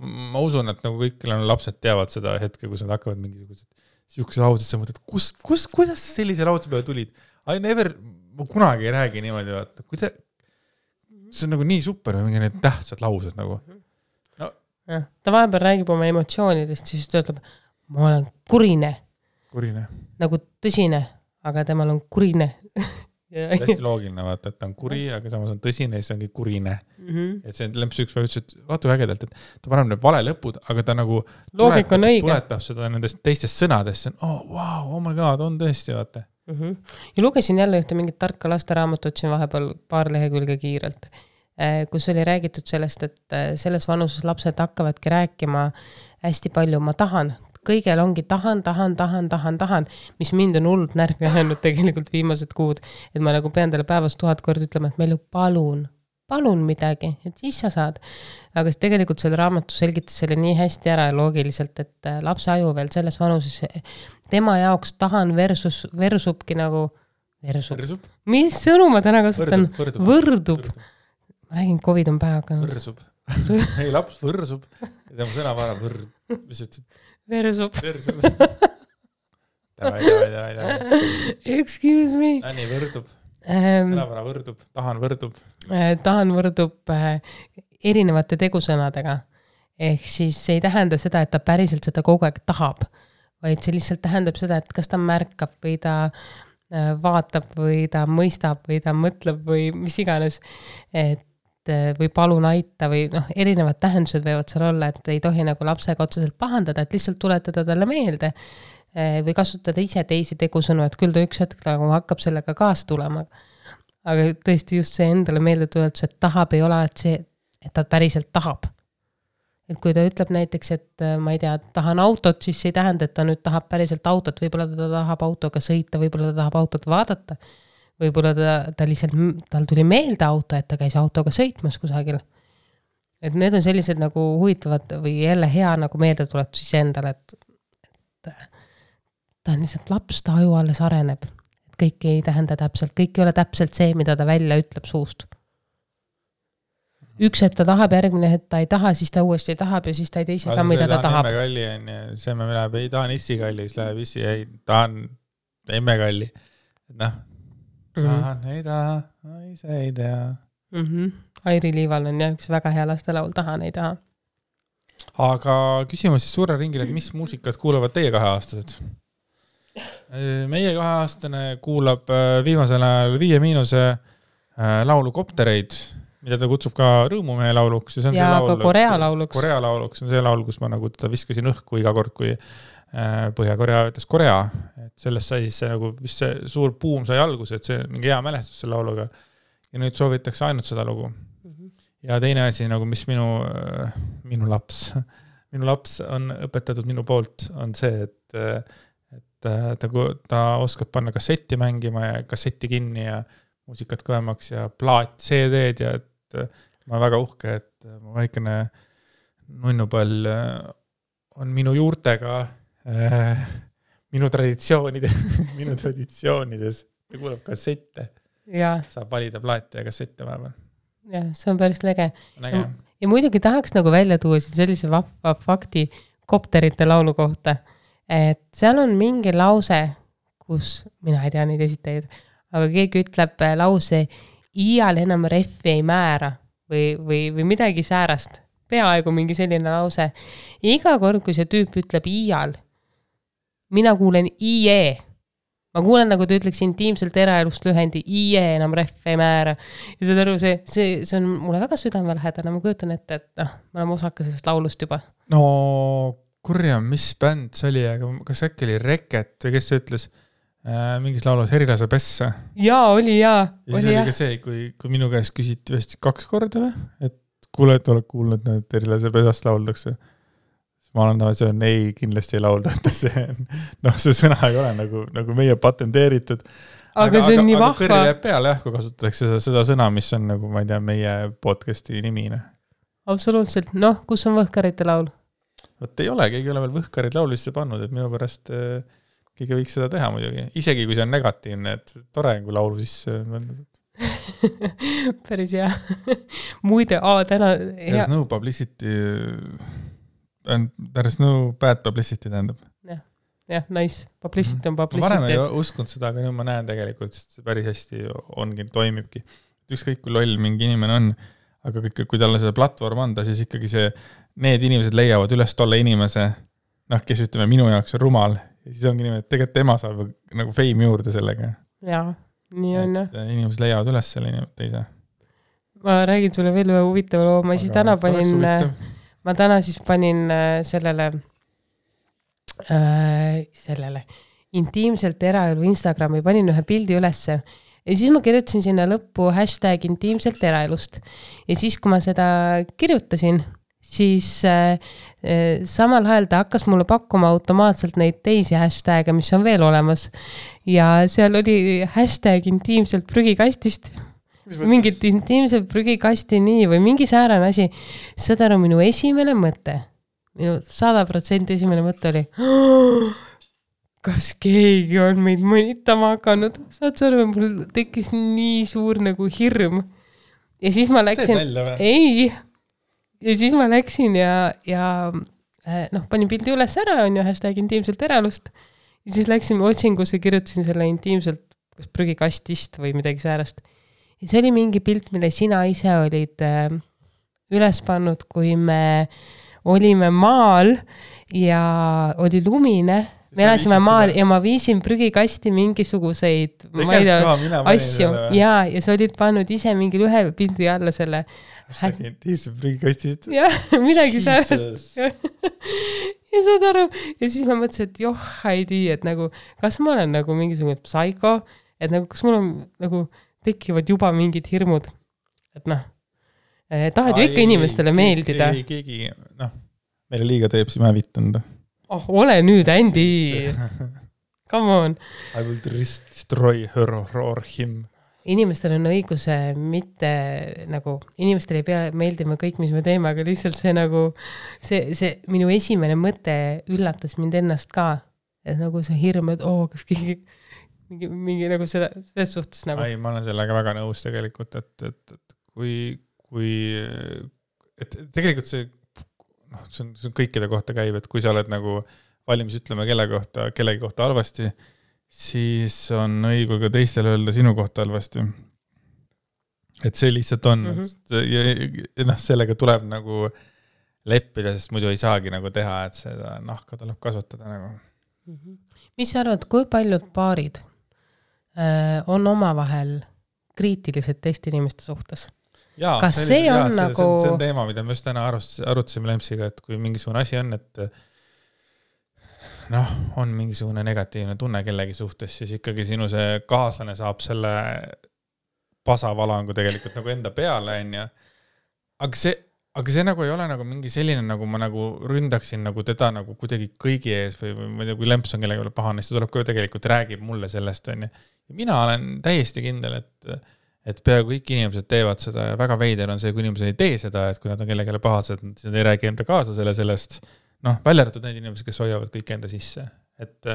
Ma usun, et nagu kõik lapsed teavad seda hetke, kus nad hakkavad mingisugused siukse laused, sa mõtled, kuidas sellise lause peale tulid? Ma kunagi ei räägi niimoodi, vaata. See on nagu nii super, mingi need tähtsad laused nagu. Ta vahepeal räägib oma emotsioonidest, siis ta ütleb, ma olen kurine. Nagu tõsine, aga temal on kurine. Hästi loogiline, vaata, et ta on kuri, aga samas on tõsine ja siis ongi kurine. Et see lemps üks päev ütles, et vaata ägedalt, et ta paneb need vale lõpud, aga ta nagu tuletab seda nendest teistest sõnadest. Oh my god, on tõesti, vaata. Ja lugesin jälle ühte mingit tarka lasteraamatut siin vahepeal paar lehekülge kiirelt, kus oli räägitud sellest, et selles vanuses lapsed hakkavadki rääkima hästi palju, ma tahan, kõigel ongi tahan, mis mind on hullult närvi ajanud tegelikult viimased kuud, et ma nagu pean talle päevas 1000 korda ütlema, et meil ju palun, palun midagi, et siis sa saad. Aga tegelikult selle raamatus selgitas selle nii hästi ära ja loogiliselt, et lapse aju veel selles vanuses, tema jaoks tahan versubki nagu, versub. Mis sõnu ma täna kasutan? Võrdub. Ma räägin, COVID on pähe hakanud. Võrsub. Ei, laps võrsub. Ja tema sõnavara mis ütled? Versub. Davai. Excuse me. Anni võrdub. Sõnavara võrdub. Tahan võrdub erinevate tegusõnadega. Ehk siis see ei tähenda seda, et ta päriselt seda kogu aeg tahab, vaid see lihtsalt tähendab seda, et kas ta märkab või ta vaatab või ta mõistab või ta mõtleb või mis iganes. Et või palun aita või erinevad tähendused võivad seal olla, et ei tohi nagu lapsega otseselt pahandada, et lihtsalt tuletada talle meelde või kasutada ise teisi tegusõnu, et küll ta üks hetk nagu hakkab sellega kaasa tulema. Aga tõesti just see endale meelde tuletus, et tahab ei ole alati see, et ta päriselt tahab. Et kui ta ütleb näiteks, et ma ei tea, tahan autot, siis see ei tähenda, et ta nüüd tahab päriselt autot, võib-olla ta tahab autoga sõita, võib-olla ta tahab autot vaadata. Võib-olla ta lihtsalt, tal tuli meelde auto, et ta käis autoga sõitmas kusagil. Et need on sellised nagu huvitavad või jälle hea nagu meeldetuletus ise endale, et ta on lihtsalt laps, ta aju alles areneb. Et kõik ei tähenda täpselt, kõik ei ole täpselt see, mida ta välja ütleb suust. Üks, et ta tahab, järgmine, et ta ei taha, siis ta uuesti tahab ja siis ta ei teise ka, mida ta tahab. Emmekalli on ja see me läheb, ei tahan issikalli, siis läheb issi, ei tahan emmekalli. Tahan, ei taha, ise ei tea. Airi Liival on jah üks väga hea lastelaul, tahan, ei taha. Aga küsimus siis suure ringile, et mis muusikat kuulavad teie 2-aastased? Meie 2-aastane kuulab viimasel ajal 5- laulu Koptereid, mida ta kutsub ka Rõõmumehe lauluks. Ja ka Korea lauluks. Korea lauluks on see laul, kus ma nagu ta viskasin õhku iga kord, kui Põhja-Korea ütles Korea. Et sellest sai siis see, nagu, mis see suur puum sai alguse, et see mingi hea mälestus selle lauluga. Ja nüüd soovitakse ainult seda lugu. Ja teine asi, nagu mis minu laps on õpetatud minu poolt, on see, et ta oskab panna kassetti mängima ja kassetti kinni ja muusikat kõvemaks ja plaat, CD-d ja et ma olen väga uhke, et mu väikene nunnupall on minu juurtega minu traditsioonides ja kuulab kassette. Ja. Saab valida plaate ja kassette vahepeal. Ja, see on päris lege. Ja muidugi tahaks nagu välja tuua sellise vahva fakti Kopterite laulu kohta, et seal on mingi lause, kus mina ei tea neid esitajaid, aga keegi ütleb lause iial enam reffi ei määra või midagi säärast. Peaaegu mingi selline lause. Iga kord, kui see tüüp ütleb iial, mina kuulen IE. Ma kuulen, nagu ta ütleks intiimselt eraelust lühendi, IE enam reffi ei määra. Ja see aru, see on mulle väga südamelähedane. Ma kujutan ette, et ma olen osaka sellest laulust juba. No, kurja, mis bänd see oli, aga kas äkki oli Reket või kes see ütles mingis laulus Herilase pessa? Jaa, oli jaa. Ja siis oli ka see, kui minu käest küsiti vist 2 korda või? Et kuule, et oled kuulnud, et Herilase pesast lauldakse. Ma olen see on ei, kindlasti ei laulda, et see sõna ei ole nagu meie patenteeritud. Aga see on nii vahva. Aga kõrri läheb peale, kui kasutatakse seda sõna, mis on nagu, ma ei tea, meie podcasti nimine. Absoluutselt. Kus on Võhkarite laul? Võt ei ole, keegi ei ole veel Võhkarid laulisse pannud, et minu pärast keegi võiks seda teha muidugi. Isegi kui see on negatiivne, et tore kui laulu sisse päris hea. Muide, täna There's no publicity and there's no bad publicity tähendab. Jah, nice. Publicity on publicity. Varem ei uskunud seda, aga nüüd ma näen tegelikult, sest see päris hästi ongi, toimibki. Ükskõik kui loll mingi inimene on, aga kui talle seda platvorm anda, siis ikkagi need inimesed leiavad üles tolle inimese, kes ütleme minu jaoks on rumal. Ja siis ongi niimoodi, et tegelikult tema saab nagu fame juurde sellega. Jaa, nii on jah. Inimesed leiavad üles selle inimene teise. Ma räägin sulle veel ühe huvitava loo. Ma täna siis panin sellele intiimselt eraelu Instagrami, panin ühe pildi ülesse ja siis ma kirjutasin sinna lõppu #intiimselt eraelust ja siis, kui ma seda kirjutasin, siis samal ajal ta hakkas mulle pakkuma automaatselt neid teisi hashtag'e, mis on veel olemas ja seal oli #intiimselt prügikastist mingit intiimset prügikasti nii või mingi säärane asi. Saad aru, minu esimene mõte, minu 100% esimene mõte oli, kas keegi on meid mõnitama hakanud. Saad aru, mul tekkis nii suur nagu hirm. Ja siis ma läksin, ei, ja siis ma läksin ja panin pildi üles ära, on ju, hashtag intiimselt eraelust. Ja siis läksin otsingusse, kirjutasin selle intiimselt prügikastist või midagi säärast. Ja see oli mingi pilt, mille sina ise olid üles pannud, kui me olime maal ja oli lumine. Me elasime maal ja ma viisin prügikasti mingisuguseid asju. Ja see olid pannud ise mingil ühe pildi alla selle. Intiimselt prügikastist. Jah, midagi säärast. Ja saad aru. Ja siis ma mõtlesin, et Heidi, et nagu, kas ma olen nagu mingisugune psycho, et nagu, kas mul on nagu tekivad juba mingid hirmud. Et tahad ju ikka inimestele meeldida. Ei, keegi, meile liiga teeb, siis ma vittanud. Ole nüüd, Andy. Come on. I will destroy her or him. Inimestel on õiguse mitte nagu, inimestel ei pea meeldima kõik, mis me teeme, aga lihtsalt see nagu, see minu esimene mõte üllatas mind ennast ka. Et nagu see hirm, et kas keegi mingi nagu selles suhtes nagu. Ei, ma olen sellega väga nõus tegelikult, et kui tegelikult see on kõikide kohta käib, et kui sa oled nagu valmis ütlema kellegi kohta halvasti, siis on õigul ka teistele öelda sinu kohta halvasti. Et see lihtsalt on. Ja sellega tuleb nagu leppida, sest muidu ei saagi nagu teha, et seda nahka tuleb kasvatada nagu. Mis sa arvad, kui paljud paarid on omavahel kriitilised teiste inimeste suhtes? Jaa, kas see on nagu... See on teema, mida me just täna arutasime Lempsiga, et kui mingisugune asi on, et on mingisugune negatiivne tunne kellegi suhtes, siis ikkagi sinu see kaaslane saab selle pasavalangu tegelikult nagu enda peale, on ja. Aga see nagu ei ole nagu mingi selline, nagu ma nagu ründaksin nagu teda nagu kuidagi kõigi ees või kui Lemps on kellegi pahane, siis ta tuleb ka tegelikult räägib mulle sellest, on ja. Ja mina olen täiesti kindel, et peaaegu kõik inimesed teevad seda ja väga veider on see, kui inimesed ei tee seda, et kui nad on kellegele pahased, siis nad ei räägi enda kaaslasele sellest, välja arvatud need inimesed, kes hoiavad kõik enda sisse. Et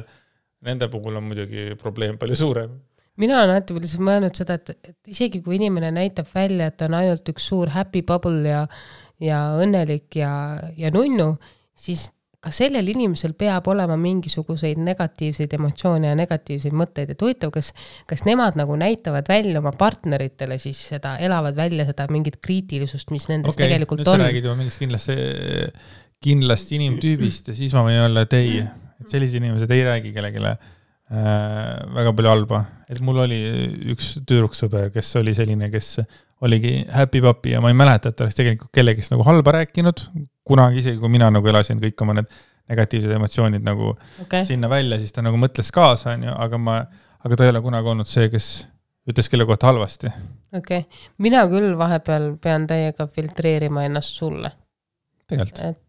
nende puhul on muidugi probleem palju suurem. Mina olen alati lihtsalt mõelnud seda, et isegi kui inimene näitab välja, et on ainult üks suur happy bubble ja õnnelik ja nunnu, siis ka sellel inimesel peab olema mingisuguseid negatiivseid emotsioone ja negatiivseid mõtteid. Et huvitav, kas nemad nagu näitavad välja oma partneritele, siis seda elavad välja seda mingit kriitilisust, mis nendes tegelikult on. Nüüd sa räägid juba mingist kindlasti inimtüübist ja siis ma võin olla, et ei, et sellised inimesed ei räägi kellegile väga palju halba. Et mul oli üks tüdruksõber, kes oli selline, kes oligi happy papi ja ma ei mäleta, et ta oleks tegelikult kellegist nagu halba rääkinud, kunagi isegi, kui mina nagu elasin kõik oma need negatiivsed emotsioonid nagu sinna välja, siis ta nagu mõtles kaasa, aga ta ei ole kunagi olnud see, kes ütles kelle kohta halvasti. Mina küll vahepeal pean täiega filtreerima ennast sulle. Tegelikult.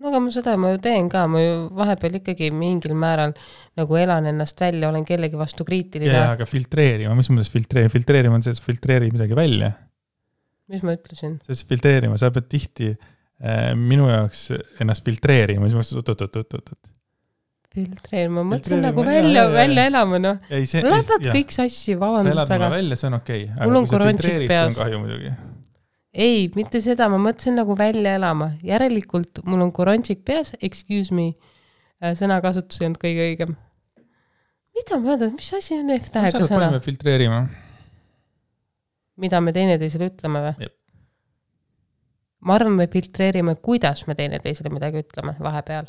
Aga ma ju teen ka, ma ju vahepeal ikkagi mingil määral nagu elan ennast välja, olen kellegi vastu kriitiline. Ja, aga filtreerima, mis mõttes filtreerima? Filtreerima on see, et filtreeri midagi välja. Mis ma ütlesin? See filtreerima, sa pead tihti minu jaoks ennast filtreerima, mis mõttes filtreerima, mõtlen nagu välja elama, Lähevad kõik sassi, vabandust väga. Sa elad mulle välja, see on okei. Mul on korončik peas. See on kahju muidugi. Ei, mitte seda, ma mõtlesin nagu välja elama. Järelikult mul on korončik peas, excuse me, sõnakasutus ei olnud kõige õigem. Mida ma öelda, mis asi on F-tähega sõna? Paneme filtreerima. Mida me teineteisele ütleme või? Jep. Ma arvan, me filtreerime, kuidas me teineteisele midagi ütleme vahepeal.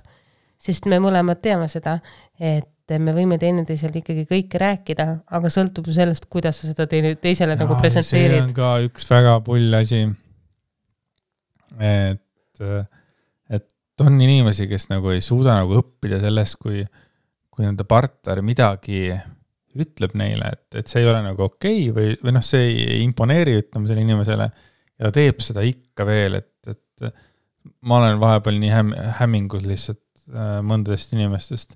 Sest me mõlemad teame seda, et me võime teineteisele ikkagi kõike rääkida, aga sõltub sellest, kuidas sa seda teisele nagu presenteerid. See on ka üks väga pull asi. Et on inimesi, kes nagu ei suuda nagu õppida sellest, kui nende partner midagi ütleb neile, et see ei ole nagu okei või see ei imponeeri ütlema selle inimesele ja ta teeb seda ikka veel, et ma olen vahepeal nii hämmingus lihtsalt mõndadest inimestest.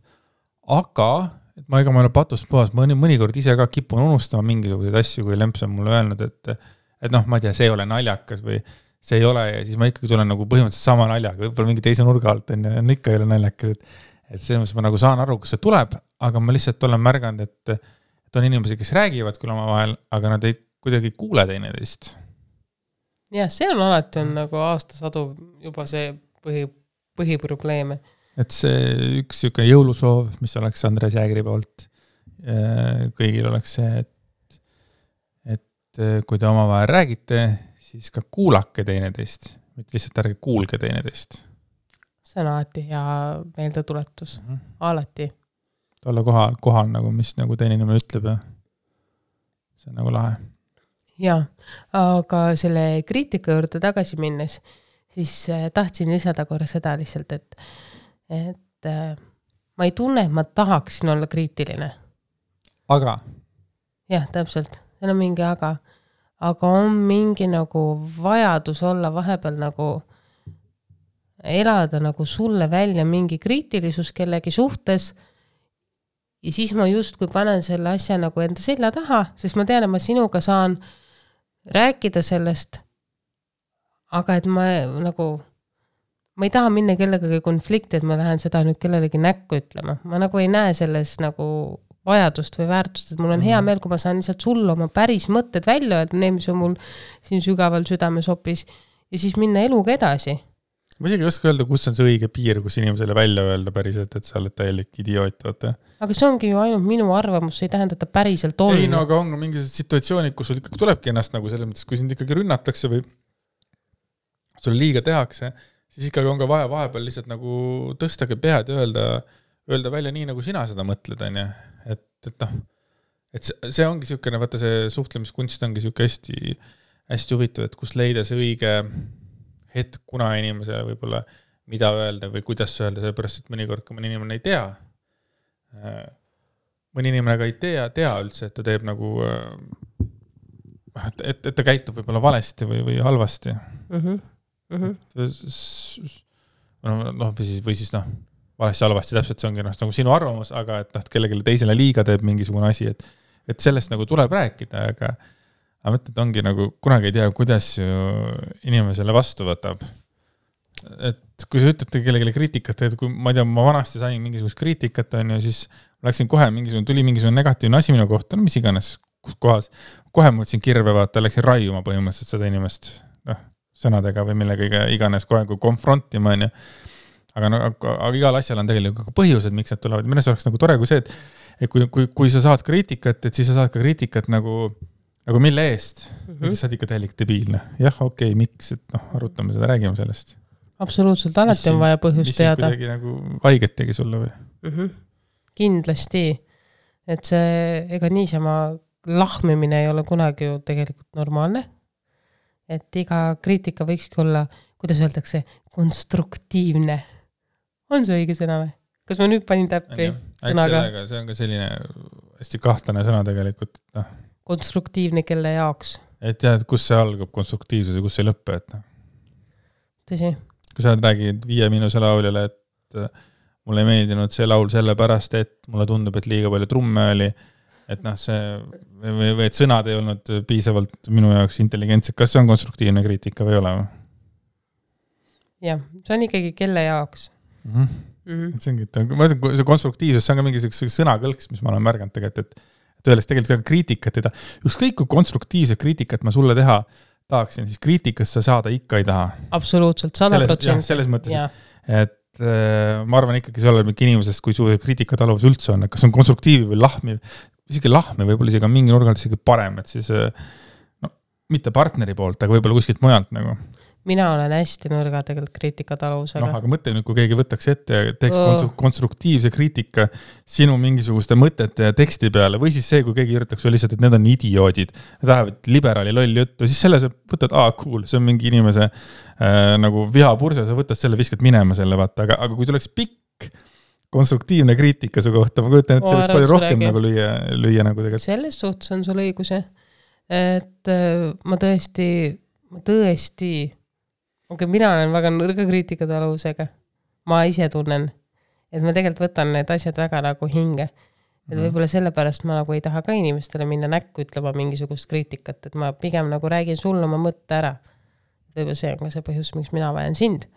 Aga et ma ei ole patust puhas, ma mõnikord ise ka kipun unustama mingisuguseid asju, kui Lemps on mulle öelnud, et noh, ma ei tea, see ei ole naljakas või see ei ole ja siis ma ikkagi tulen nagu põhimõtteliselt sama naljaga, võib-olla mingi teise nurga alt on ikka ei ole naljakas, et selles mõttes ma nagu saan aru, kus see tuleb, aga ma lihtsalt olen märganud, et on inimesi, kes räägivad küll oma vahel, aga nad ei kuidagi kuule teineteist. Jah, see on alati on nagu aastasadu juba see põhiprobleeme. Et see üks siuke jõulusoov, mis oleks Andres Jäägri poolt, kõigil oleks see, et kui te omavahel räägite, siis ka kuulake teineteist, mitte lihtsalt ärge kuulge teineteist. See on alati hea meeldetuletus, alati. Olla kohal nagu, mis nagu teine inimene ütleb ja see on nagu lahe. Ja, aga selle kriitika juurde tagasi minnes, siis tahtsin lisada korra seda lihtsalt, et ma ei tunne, et ma tahaksin olla kriitiline. Aga? Jah, täpselt. See on mingi aga on mingi nagu vajadus olla vahepeal nagu elada nagu sulle välja mingi kriitilisus kellegi suhtes ja siis ma justkui panen selle asja nagu enda selja taha, sest ma tean, et ma sinuga saan rääkida sellest, aga et ma ei taha minna kellegagi konflikti, et ma lähen seda nüüd kellelegi näkku ütlema. Ma nagu ei näe selles nagu vajadust või väärtust, et mul on hea meel, kui ma saan lihtsalt sulle oma päris mõtted välja öelda, need, mis on mul siin sügaval südames hoopis ja siis minna eluga edasi. Ma isegi ei oska öelda, kus on see õige piir, kus inimesele välja öelda päriselt, et sa oled täielik idioot, vaata. Aga see ongi ju ainult minu arvamus, see ei tähenda, et ta päriselt on. Ei, no aga on mingisugused situatsioonid, kus sul ikkagi tulebki ennast nagu selles mõttes, kui sind ikkagi rünnatakse või sulle liiga tehakse, siis ikkagi on ka vaja vahepeal lihtsalt nagu tõstage pead ja öelda välja nii, nagu sina seda mõtled, on ja? Et noh, et see ongi siukene, vaata see suhtlemiskunst ongi siuke hästi huvitav, et kus leida see õige hetk, kuna inimesele võib-olla mida öelda või kuidas öelda, sellepärast, et mõnikord, kui mõni inimene ei tea, mõni inimene ka ei tea üldse, et ta teeb nagu, et ta käitub võib-olla valesti või halvasti. Või siis valesti halvasti, täpselt see ongi nagu sinu arvamus, aga et kellelegi teisele liiga teeb mingisugune asi, et sellest nagu tuleb rääkida, aga mõtled, et ongi nagu kunagi ei tea, kuidas inimesele vastu võtab. Et kui sa ütled kellelegi kriitikat, et kui ma ei tea, ma vanasti sain mingisugust kriitikat, on ju, siis läksin kohe tuli mingisugune negatiivne asi minu kohta, mis iganes, kus kohas, kohe mõtlesin kirve vaata, läksin raiuma põhimõtteliselt seda inimest sõnadega või millega iganes kohe kui konfrontima, on ju. Aga igal asjal on tegelikult põhjused, miks need tulevad. Minu oleks nagu tore kui see, et kui sa saad kriitikat, et siis sa saad ka kriitikat nagu mille eest. Siis saad ikka täielik debiilne. Jah, okei, miks, et arutame seda, räägime sellest. Absoluutselt, alati on vaja põhjust teada. Mis kuidagi nagu haiget tegi sulle või? Kindlasti. Et see, ega niisama lahmimine ei ole kunagi ju tegelikult normaalne. Et iga kriitika võikski olla, kuidas öeldakse, konstruktiivne. On see õige sõna või? Kas ma nüüd panin täppi sõnaga? See on ka selline hästi kahtlane sõna tegelikult. Konstruktiivne kelle jaoks. Et tead, kus see algab konstruktiivsus ja kus see lõppe, et Tõsi. Kui sa räägid 5 Miinuse lauljale, et mulle ei meeldinud see laul sellepärast, et mulle tundub, et liiga palju trumme oli, et see või et sõnad ei olnud piisavalt minu jaoks intelligentsed. Kas see on konstruktiivne kriitika või ei ole? Jah, see on ikkagi kelle jaoks. See ongi, see konstruktiivsus, see on ka mingi sõnakõlks, mis ma olen märganud tegelikult, et öeldes tegelikult kriitikat ei taha. Ükskõik kui konstruktiivset kriitikat ma sulle teha tahaksin, siis kriitikast sa saada ikka ei taha. Absoluutselt, 100%. Selles mõttes, et ma arvan ikkagi see ole mingi inimesest, kui su kriitikataluvus üldse on, kas on konstruktiivi või lahmi, isegi lahmi võib-olla isegi mingi nurgal isegi parem, et siis mitte partneri poolt, aga võib-olla kuskilt mujalt nagu. Mina olen hästi nõrga tegelikult kriitikataluvusega. Aga mõtle nüüd, kui keegi võtaks ette ja teeks konstruktiivse kriitika sinu mingisuguste mõtete ja teksti peale, või siis see, kui keegi üritaks lihtsalt, et need on idioodid, need lähevad liberaali loll juttu, siis selle sa võtad, cool, see on mingi inimese nagu vihapurse, sa võtad selle, viskad minema selle, vaata, aga kui tuleks pikk konstruktiivne kriitika su kohta, ma kujutan, et see võiks palju rohkem nagu lüüa nagu tegelikult. Selles suhtes on sul õiguse, et ma tõesti okay, mina olen väga nõrga kriitikataluvusega. Ma ise tunnen, et ma tegelikult võtan need asjad väga nagu hinge. et võib-olla sellepärast ma nagu ei taha ka inimestele minna näkku ütlema mingisugust kriitikat, et ma pigem nagu räägin sulle oma mõtte ära. Võib-olla see on ka see põhjus, miks mina vajan sind.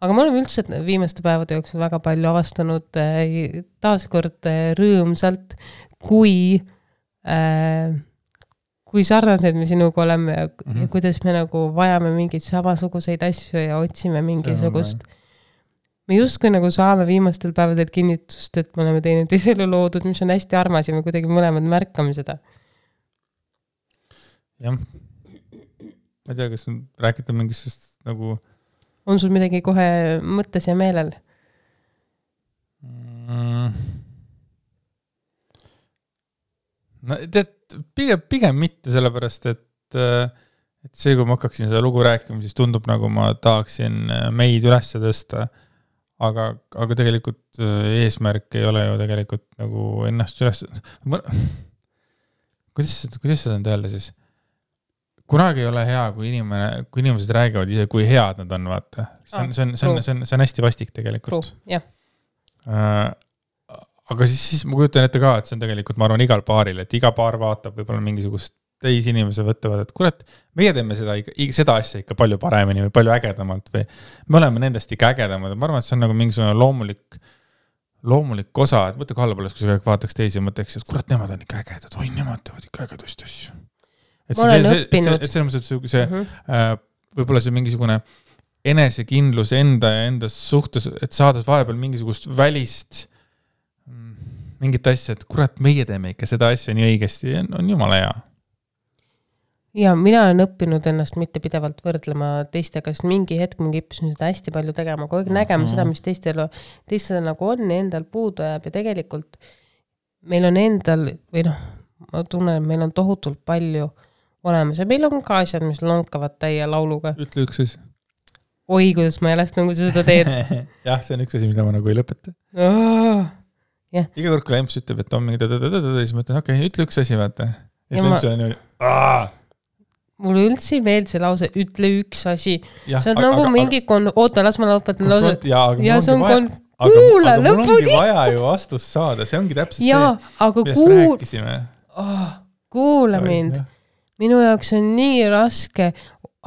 Aga me oleme üldse viimaste päevade jooksul väga palju avastanud taaskord rõõmsalt, kui sarnased me sinuga oleme ja kuidas me nagu vajame mingeid samasuguseid asju ja otsime mingisugust. Me justkui nagu saame viimastel päevadel kinnitust, et me oleme teinud iselu loodud, mis on hästi armas ja me kuidagi mõlemad märkame seda. Jah. Ma ei tea, kas rääkida mingisugust nagu... On sul midagi kohe mõttes ja meelel? No, pigem mitte sellepärast, et see, kui ma hakkaksin seda lugu rääkima, siis tundub nagu ma tahaksin meid üles tõsta. Aga tegelikult eesmärk ei ole ju tegelikult nagu ennast üles... Kuidas seda on öelda siis? Kunagi ei ole hea, kui inimesed räägivad ise, kui head nad on, vaata. See on hästi vastik tegelikult. Jah. Aga siis ma kujutan ette ka, et see on tegelikult, ma arvan, igal paaril, et iga paar vaatab võib-olla mingisugust teisi inimese võtavad, et kurat, meie teeme seda asja ikka palju paremini või palju ägedamalt või me oleme nendest ikka ägedamad. Ma arvan, et see on nagu mingisugune loomulik osa, et mõtle kallapoolest, kui sa vaataks teisi ja mõtleks, et kurat, nemad on ikka ägedad, või nemad teevad ikka ägedust asju. Ma olen õppinud. Et selles mõttes, võib-olla see mingisugune enesekindlus enda ja enda suhtes, et saades vahepeal mingisugust välist mingit asja, et kurat, meie teeme ikka seda asja nii õigesti, on jumala hea. Ja mina olen õppinud ennast mitte pidevalt võrdlema teistega, sest mingi hetk ma kippusin seda hästi palju tegema, kogu aeg nägema seda, mis teistel nagu on ja endal puudu jääb ja tegelikult meil on endal, või ma tunnen, et meil on tohutult palju olemas ja meil on ka asjad, mis lonkavad täie lauluga. Ütle üks asi. Oi, kuidas ma jällest nagu seda teed. Jah, see on üks asi, mida ma nagu ei lõpeta. Yeah. Iga kord, kui Lemps ütleb, et on mingi siis ma ütlen, okei, ütle üks asi, vaata. Ja Lemps on niimoodi, mulle üldse ei meeld see lause, ütle üks asi. See on nagu mingi oota, las ma lõpetan lause. Ja see on kuula lõpuni. Aga mul ongi vaja ju vastust saada, see ongi täpselt see, millest me rääkisime. Kuula mind. Minu jaoks on nii raske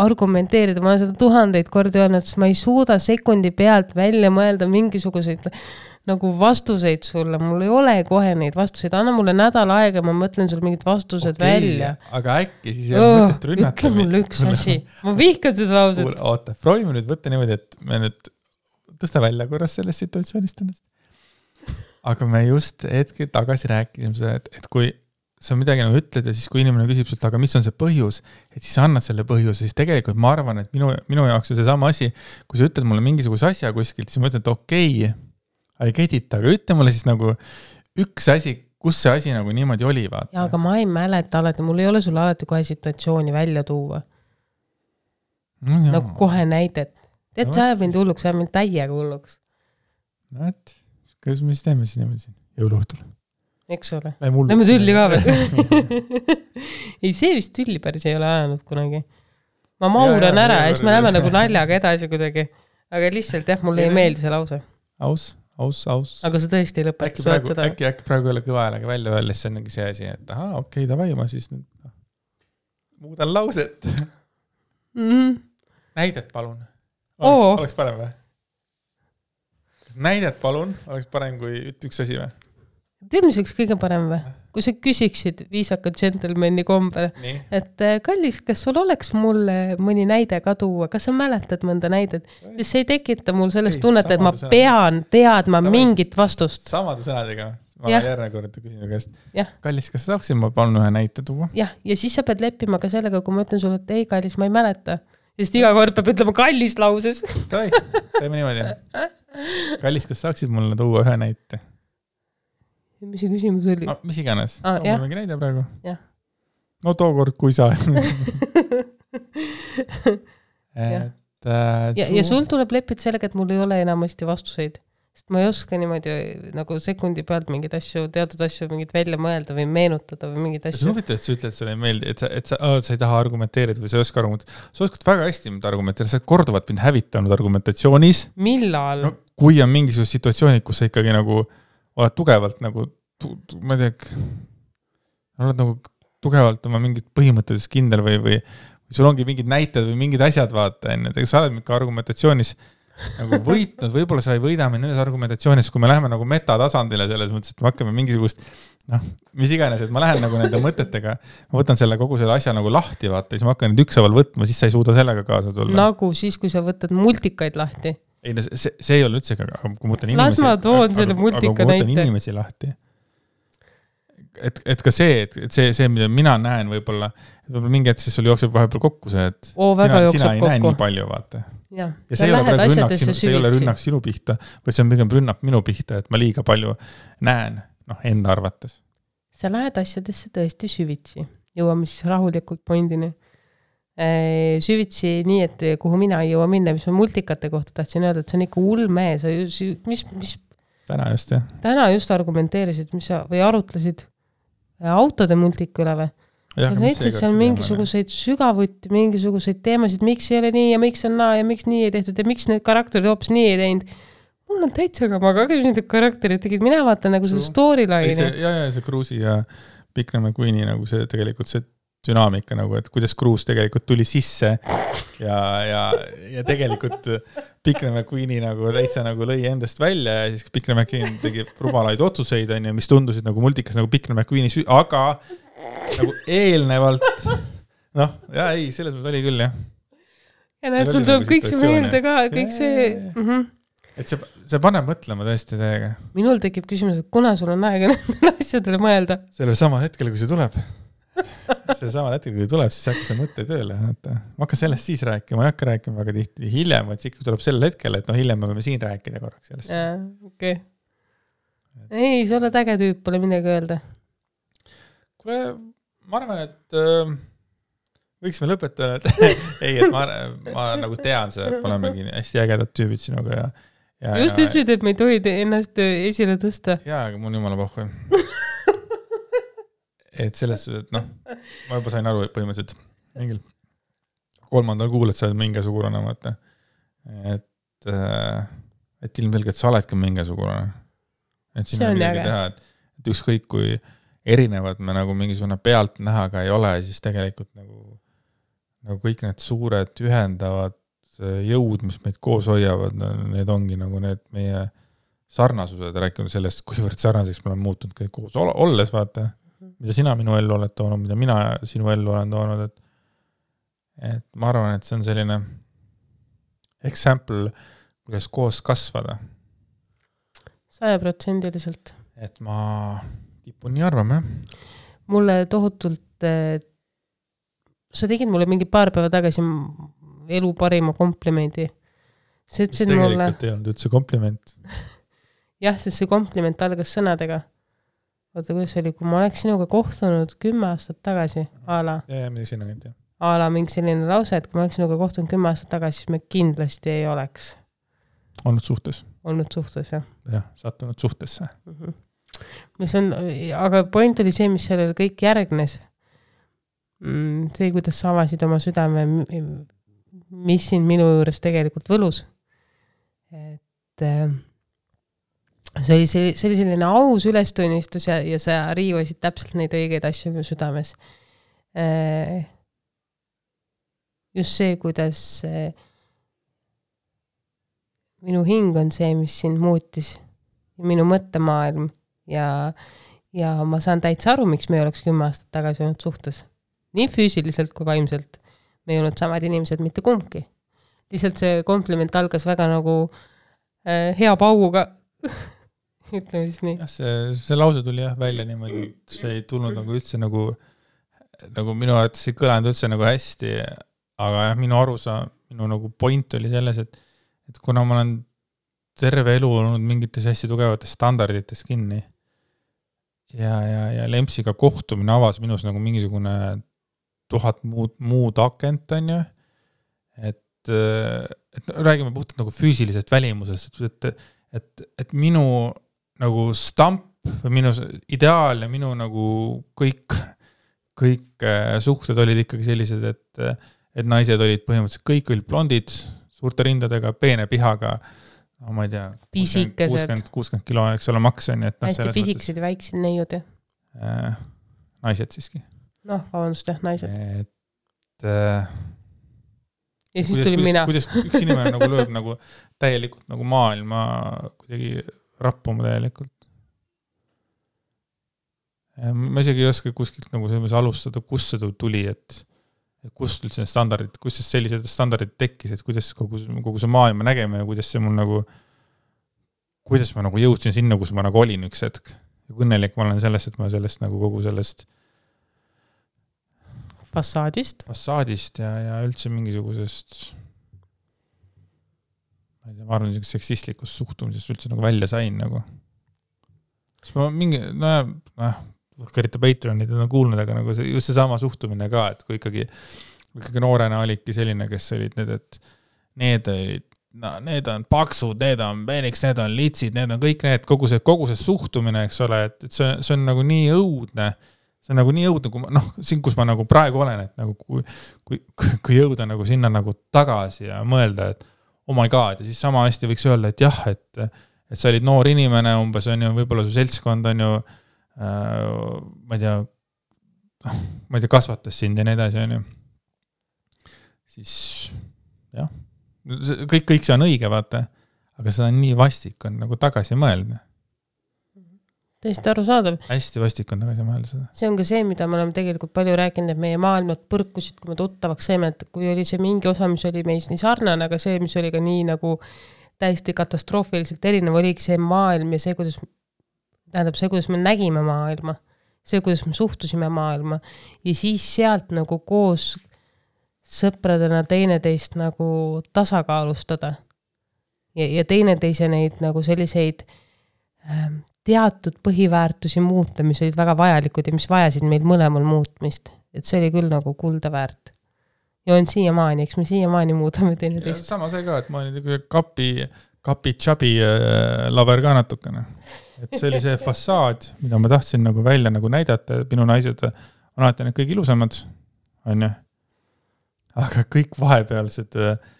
argumenteerida, ma olen seda 1000 kordi öelnud, sest ma ei suuda sekundi pealt välja mõelda mingisuguseid nagu vastuseid sulle, mul ei ole kohe neid vastuseid, anna mulle nädal aega, ma mõtlen sul mingid vastused välja. Aga äkki siis ei ole mõtet rünnata. Ütle mulle üks asi, ma vihkan seda lauset. Oota, proovime nüüd võtta niimoodi, et me nüüd tõsta välja korras sellest situatsioonist ennast. Aga me just hetke tagasi rääkisime seda, et kui sa midagi nagu ütled ja siis kui inimene küsib sult, aga mis on see põhjus, et siis annad selle põhjuse, siis tegelikult ma arvan, et minu jaoks on see sama asi, kui sa ütled mulle mingisuguse asja kuskilt, siis ma ütlen, et okei, ei kedita, aga ütle mulle siis nagu üks asi, kus see asi nagu niimoodi oli, vaata. Ja, aga ma ei mäleta alati, mul ei ole sulle alati kohe situatsiooni välja tuua. No, nagu kohe näidet. Tead, sa ajab mind hulluks, sa ajab mind täiega hulluks. No, et, kuidas me siis teeme siis niimoodi siin jõuluõhtul? Eks ole. Lähme tülli ka veel. Ei, see vist tülli päris ei ole ajanud kunagi. Ma mauran ära ja siis me läheme nagu naljaga edasi kuidagi. Aga lihtsalt jah, mulle ei meeldi see lause. Aus. Aga sa tõesti ei lõpeta. Äkki praegu ei ole kõva häälega välja öeldes, see on mingi see asi, et okei, davai, ma siis nüüd muudan lauset. Näidet palun. Oleks parem või? Näidet palun, oleks parem kui üks asi või? Tead, mis oleks kõige parem või? Kui sa küsiksid viisaka džentelmeni kombel, et kallis, kas sul oleks mulle mõni näide ka tuua? Kas sa mäletad mõnda näidet? See ei tekita mul sellest tunnet, et ma pean teadma mingit vastust. Samade sõnadega. Ma järgne kord küsin käest. Kallis, kas sa saaksid ma palun ühe näite tuua? Ja siis sa pead leppima ka sellega, kui ma ütlen sulle, et ei, kallis, ma ei mäleta. Sest iga kord peab ütlema kallis lauses. Teeme niimoodi. Kallis, kas saaksid mulle tuua ühe näite? Mis see küsimus oli? Mis iganes. Mul on mingi näide praegu. Jah. No tookord, kui sa. Ja sul tuleb leppida sellega, et mul ei ole enamasti vastuseid. Sest ma ei oska niimoodi nagu sekundi pealt mingid asju, teatud asju mingid välja mõelda või meenutada või mingid asju. See on huvitav, et sa ütled, et sulle ei meeldi, et sa ei taha argumenteerida või sa ei oska argumenteerida. Sa oskad väga hästi argumenteerida, sa korduvalt mind hävitanud argumentatsioonis. Millal? No, kui on mingisugused situatsioonid, kus sa ikkagi nagu oled tugevalt nagu, ma ei tea, oled nagu tugevalt oma mingid põhimõttelises kindel või sul ongi mingid näited või mingid asjad vaata, ega sa oled mingi argumentatsioonis nagu võitnud, võib-olla sa ei võida mind nendes argumentatsioonis, kui me läheme nagu metatasandile selles mõttes, et me hakkame mingisugust, mis iganes, et ma lähen nagu nende mõtetega, ma võtan selle kogu selle asja nagu lahti, vaata, siis ma hakkan nüüd ükshaaval võtma, siis sa ei suuda sellega kaasa tulla. Nagu siis, kui sa võtad multikaid lahti. Ei, no see ei ole üldse, aga kui ma võtan inimesi... Las ma toon selle multika näite. Inimesi lahti. Et ka see, mida mina näen võib-olla mingi hetk, siis sul jookseb vahepeal kokku see, et sina ei näe nii palju, vaata. Ja see ei ole rünnak sinu pihta, vaid see on pigem rünnak minu pihta, et ma liiga palju näen, enda arvates. Sa lähed asjadesse tõesti süvitsi. Jõuame siis rahulikult pointini. Süvitsi nii, et kuhu mina ei jõua minna, mis ma multikate kohta tahtsin öelda, et see on ikka ulme. Täna just argumenteerisid, või arutlesid autode multiku üle või? Ja näiteks see on mingisuguseid sügavuti, mingisuguseid teemasid, miks ei ole nii ja miks on naa ja miks nii ei tehtud ja miks need karakterid hoopis nii ei teinud. Mul on täitsa ka, ma ka need karakterid tegid, mina vaatan nagu see storyline. See Cruise'i ja Pikna McQueeni nagu see tegelikult see dünaamika nagu, et kuidas Cruise tegelikult tuli sisse ja tegelikult Pikna McQueeni nagu täitsa nagu lõi endast välja ja siis Pikna McQueen tegi rumalaid otsuseid, mis tundusid nagu multikas nagu Pikna McQueeni aga nagu eelnevalt selles mõttes oli küll, jah. Ja näed, sul tuleb kõik see meelde ka, kõik see... Et see paneb mõtlema tõesti täiega. Minul tekib küsimus, et kuna sul on aega nendele asjadele mõelda? Sellel samal hetkel, kui see tuleb. Siis hakka see mõtte tööle. Ma hakkan sellest siis rääkima, ma ei hakka rääkima väga tihti hiljem, et ikka tuleb sel hetkel, et hiljem me võime siin rääkida korraks sellest. Okei. Ei, sa oled äge tüüp, pole midagi öelda. Ma arvan, et võiksime lõpetada, et ma nagu tean seda, et me olemegi hästi ägedad tüübid sinuga ja just ütlesid, et me ei tohi ennast esile tõsta. Jaa, aga mul on jumala pohhu. Et selles, et ma juba sain aru põhimõtteliselt mingil 3. kuul, et sa oled mingisugune, et ilmselgelt sa oledki mingisugune. Et siin on midagi teha, et ükskõik kui erinevad me nagu mingisugune pealt nähaga ei ole, siis tegelikult nagu kõik need suured ühendavad jõud, mis meid koos hoiavad, need ongi nagu need meie sarnasused, rääkinud sellest, kuivõrd sarnaseks me oleme muutunud kõik koos olles, vaata, mida sina minu ellu oled toonud, mida mina sinu ellu olen toonud, et ma arvan, et see on selline example, kuidas koos kasvada. 100%. Et ma kipun nii arvama, Mulle tohutult, sa tegid mulle mingi paar päeva tagasi elu parima komplimendi. Sa ütlesid mulle... tegelikult ei olnud üldse kompliment. Jah, sest see kompliment algas sõnadega. Oota, kuidas oli, kui ma oleks sinuga kohtunud 10 aastat tagasi, ala. Ja, mida sinna käid, jah. Ala mingi selline lause, et kui ma oleks sinuga kohtunud 10 aastat tagasi, siis me kindlasti ei oleks. Olnud suhtes, jah. Jah, sattunud suhtesse. Mis on, aga point oli see, mis sellele kõik järgnes. See, kuidas sa avasid oma südame, mis siin minu juures tegelikult võlus. Et see oli selline aus ülestunnistus ja sa riivasid täpselt neid õigeid asju minu südames. Just see, kuidas minu hing on see, mis sind muutis. Minu mõttemaailm ja ma saan täitsa aru, miks me ei oleks 10 aastat tagasi olnud suhtes. Nii füüsiliselt kui vaimselt. Me ei olnud samad inimesed mitte kumbki. Lihtsalt see kompliment algas väga nagu hea pauguga. Ütleme siis nii. Ja, see lause tuli välja niimoodi, et see ei tulnud nagu üldse nagu minu arvates ei kõlanud üldse nagu hästi, aga minu arusa, minu nagu point oli selles, et kuna ma olen terve elu olnud mingites hästi tugevates standardites kinni ja Lempsiga kohtumine avas minus nagu mingisugune 1000 muud akent, on ju, et räägime puhtalt nagu füüsilisest välimusest, et minu nagu stamp või minu ideaal ja minu nagu kõik suhted olid ikkagi sellised, et naised olid põhimõtteliselt kõik olid blondid, suurte rindadega, peene pihaga, no, ma ei tea, pisikesed. 60 kilo, eks ole, maks on. Hästi pisikesed ja väiksed neiud ju. Naised siiski. Noh, vabandust, jah, naised. Ja siis tuli mina. Kuidas üks inimene nagu lööb nagu täielikult nagu maailma kuidagi rappuma täielikult. Ma isegi ei oska kuskilt nagu selles alustada, kus see tuli, et kust üldse need standardid, kus sellised standardid tekkis, et kuidas kogu see maailma nägeme ja kuidas see mul nagu, kuidas ma nagu jõudsin sinna, kus ma nagu olin üks hetk. Ja õnnelik ma olen sellest, et ma sellest nagu kogu sellest fassaadist ja üldse mingisugusest ma arvan, seksistlikust suhtumisest üldse nagu välja sain nagu. Siis ma mingi, kõrita Patreonid on kuulnud, aga nagu just see sama suhtumine ka, et kui ikkagi noorena olidki selline, kes olid need, et need on paksud, need on peniks, need on litsid, need on kõik need, kogu see suhtumine, eks ole, et see on nagu nii õudne, see on nagu nii õudne, kui ma, siin, kus ma nagu praegu olen, et nagu kui jõuda nagu sinna nagu tagasi ja mõelda, et oh my god, ja siis sama hästi võiks öelda, et jah, et sa olid noor inimene, umbes on ju, võib-olla su seltskond on ju, ma ei tea, kasvatas sind ja nii edasi, on ju. Siis, jah, kõik see on õige, vaata, aga seda on nii vastik on nagu tagasi mõelda. Tõesti arusaadav. Hästi vastik on tagasi mõelda seda. See on ka see, mida me oleme tegelikult palju rääkinud, et meie maailmad põrkusid, kui me tuttavaks saime, et kui oli see mingi osa, mis oli meis nii sarnane, aga see, mis oli ka nii nagu täiesti katastroofiliselt erinev, oligi see maailm ja see, kuidas me nägime maailma, see, kuidas me suhtusime maailma ja siis sealt nagu koos sõpradena teineteist nagu tasakaalustada ja teineteise neid nagu selliseid teatud põhiväärtusi muuta, mis olid väga vajalikud ja mis vajasid meil mõlemal muutmist. Et see oli küll nagu kulda väärt. Ja on siiamaani, eks me siiamaani muudame teineteist. Sama see ka, et ma olin kapi-tšabi laber ka natukene. Et see oli see fassaad, mida ma tahtsin nagu välja nagu näidata. Minu naised on alati need kõik ilusamad, on ju. Aga kõik vahepealsed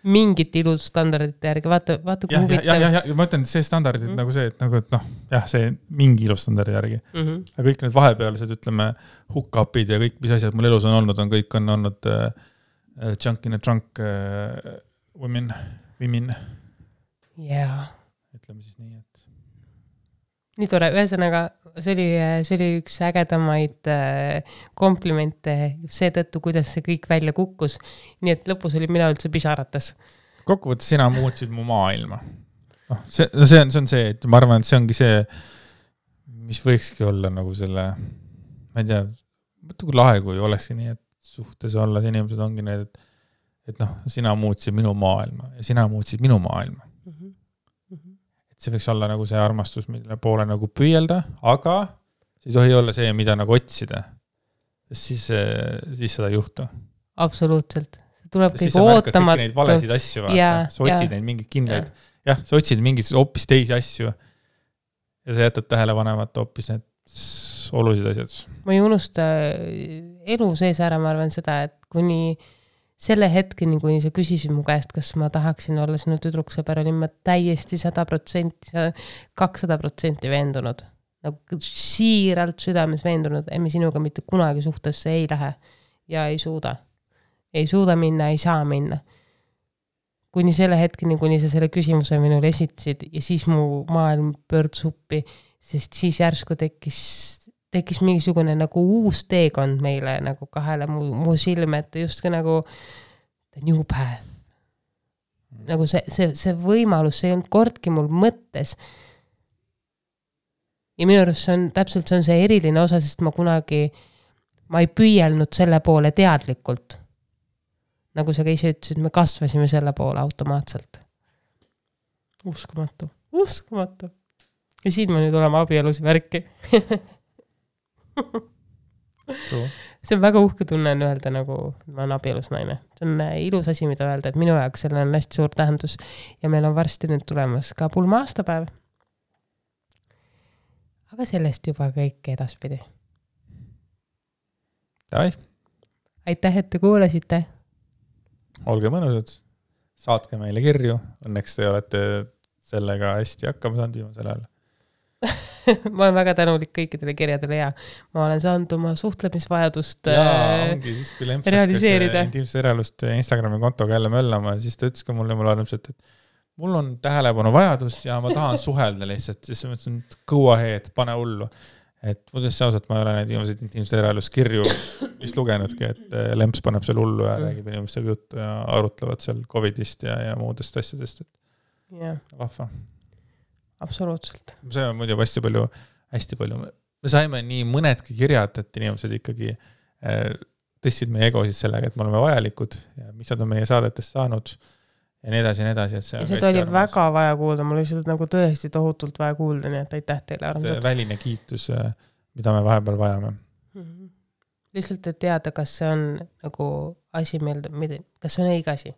mingit ilustandardite järgi, vaata kui huvitav. Ja ma ütlen, et see standardid nagu see, et nagu, et jah, see mingi ilustandardi järgi. Aga kõik need vahepealsed, ütleme, hook-upid ja kõik, mis asjad mul elus on olnud, kõik on olnud junk in a trunk women. Jaa. Ütleme siis nii, et nii tore, ühesõnaga see oli üks ägedamaid komplimente just seetõttu, kuidas see kõik välja kukkus. Nii et lõpus oli mina üldse pisarates. Kokkuvõttes sina muutsid mu maailma. See on see, et ma arvan, et see ongi see, mis võikski olla nagu selle, ma ei tea, mõtle kui lahe, kui olekski nii, et suhtes olla, inimesed ongi need, et sina muutsid minu maailma ja sina muutsid minu maailma. See võiks olla nagu see armastus, mille poole nagu püüelda, aga see ei tohi olla see, mida nagu otsida. Siis seda ei juhtu. Absoluutselt. See tuleb kõik ootamatu. Siis sa märkad kõik neid valesid asju. Sa otsid neid mingid kindlaid. Jah, sa otsid mingid hoopis teisi asju. Ja sa jätad tähelepanemata hoopis need olulised asjad. Ma ei unusta elu sees ära, ma arvan seda, et kuni selle hetkeni, kui sa küsisid mu käest, kas ma tahaksin olla sinu tüdruksõber, olin ma täiesti 100%, 200% veendunud. Nagu siiralt südames veendunud, et me sinuga mitte kunagi suhtesse ei lähe ja ei suuda. Ei suuda minna, ei saa minna. Kuni selle hetkeni, kuni sa selle küsimuse minul esitasid ja siis mu maailm pöördus uppi, sest siis järsku tekkis mingisugune nagu uus teekond meile nagu kahele mu silme, et just ka nagu the new path. Nagu see võimalus, see ei olnud kordki mul mõttes. Ja minu arust see on täpselt see eriline osa, sest ma ei püüelnud selle poole teadlikult. Nagu sa ka ise ütlesid, me kasvasime selle poole automaatselt. Uskumatu. Ja siin ma nüüd olema abielus värki. See on väga uhke tunne öelda, nagu ma olen abielus naine. See on ilus asi, mida öelda, et minu jaoks selle on hästi suur tähendus ja meil on varsti nüüd tulemas ka pulma aastapäev. Aga sellest juba kõik edaspidi. Aitäh, et te kuulasite. Olge mõnusad, saatke meile kirju, õnneks te olete sellega hästi hakkama saanud viimasel ajal. Ma olen väga tänulik kõikidele kirjadele ja ma olen saanud oma suhtlemisvajadust ongi siis, kui Lemps realiseerida. Intiimset eraelust Instagrami kontoga jälle möllama, siis ta ütles ka mulle armsalt, et mul on tähelepanu vajadus ja ma tahan suhelda lihtsalt, siis ma mõtlesin, et go ahead, pane hullu. Et muidugi ausalt, ma ei ole neid viimaseid Intiimset eraelust kirju vist lugenudki, et Lemps paneb seal hullu ja räägib inimestega juttu ja arutlevad seal COVIDist ja muudest asjadest. Yeah. Vahva. Absoluutselt. See on muidu hästi palju. Me saime nii mõnedki kirjad, et inimesed ikkagi tõstsid meie egosid sellega, et me oleme vajalikud ja mis nad on meie saadetest saanud ja nii edasi. Et see seda oli väga vaja kuulda, mul oli seda nagu tõesti tohutult vaja kuulda, nii et aitäh teile armsad. See väline kiitus, mida me vahepeal vajame. Mm-hmm. Lihtsalt, et teada, kas see on nagu asi meelde, kas see on õige asi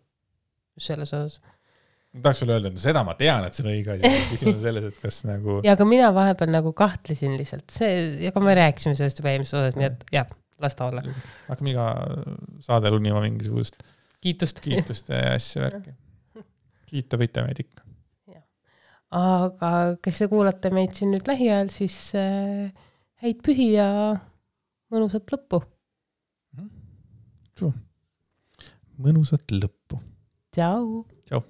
selles osas. Ma tahaks veel öelda, et seda ma tean, et see on õige asi. Küsimus selles, et kas nagu... Ja aga mina vahepeal nagu kahtlesin lihtsalt. Ja ka me rääkisime sellest juba eelmises osas, nii et jah, las ta olla. Hakkame iga saade lunima mingisugust kiitust ja asja värki. Kiita võite meid ikka. Ja. Aga kes te kuulate meid siin nüüd lähiajal, siis häid pühi ja mõnusat lõppu. Mõnusat lõppu. Tšau. Tšau.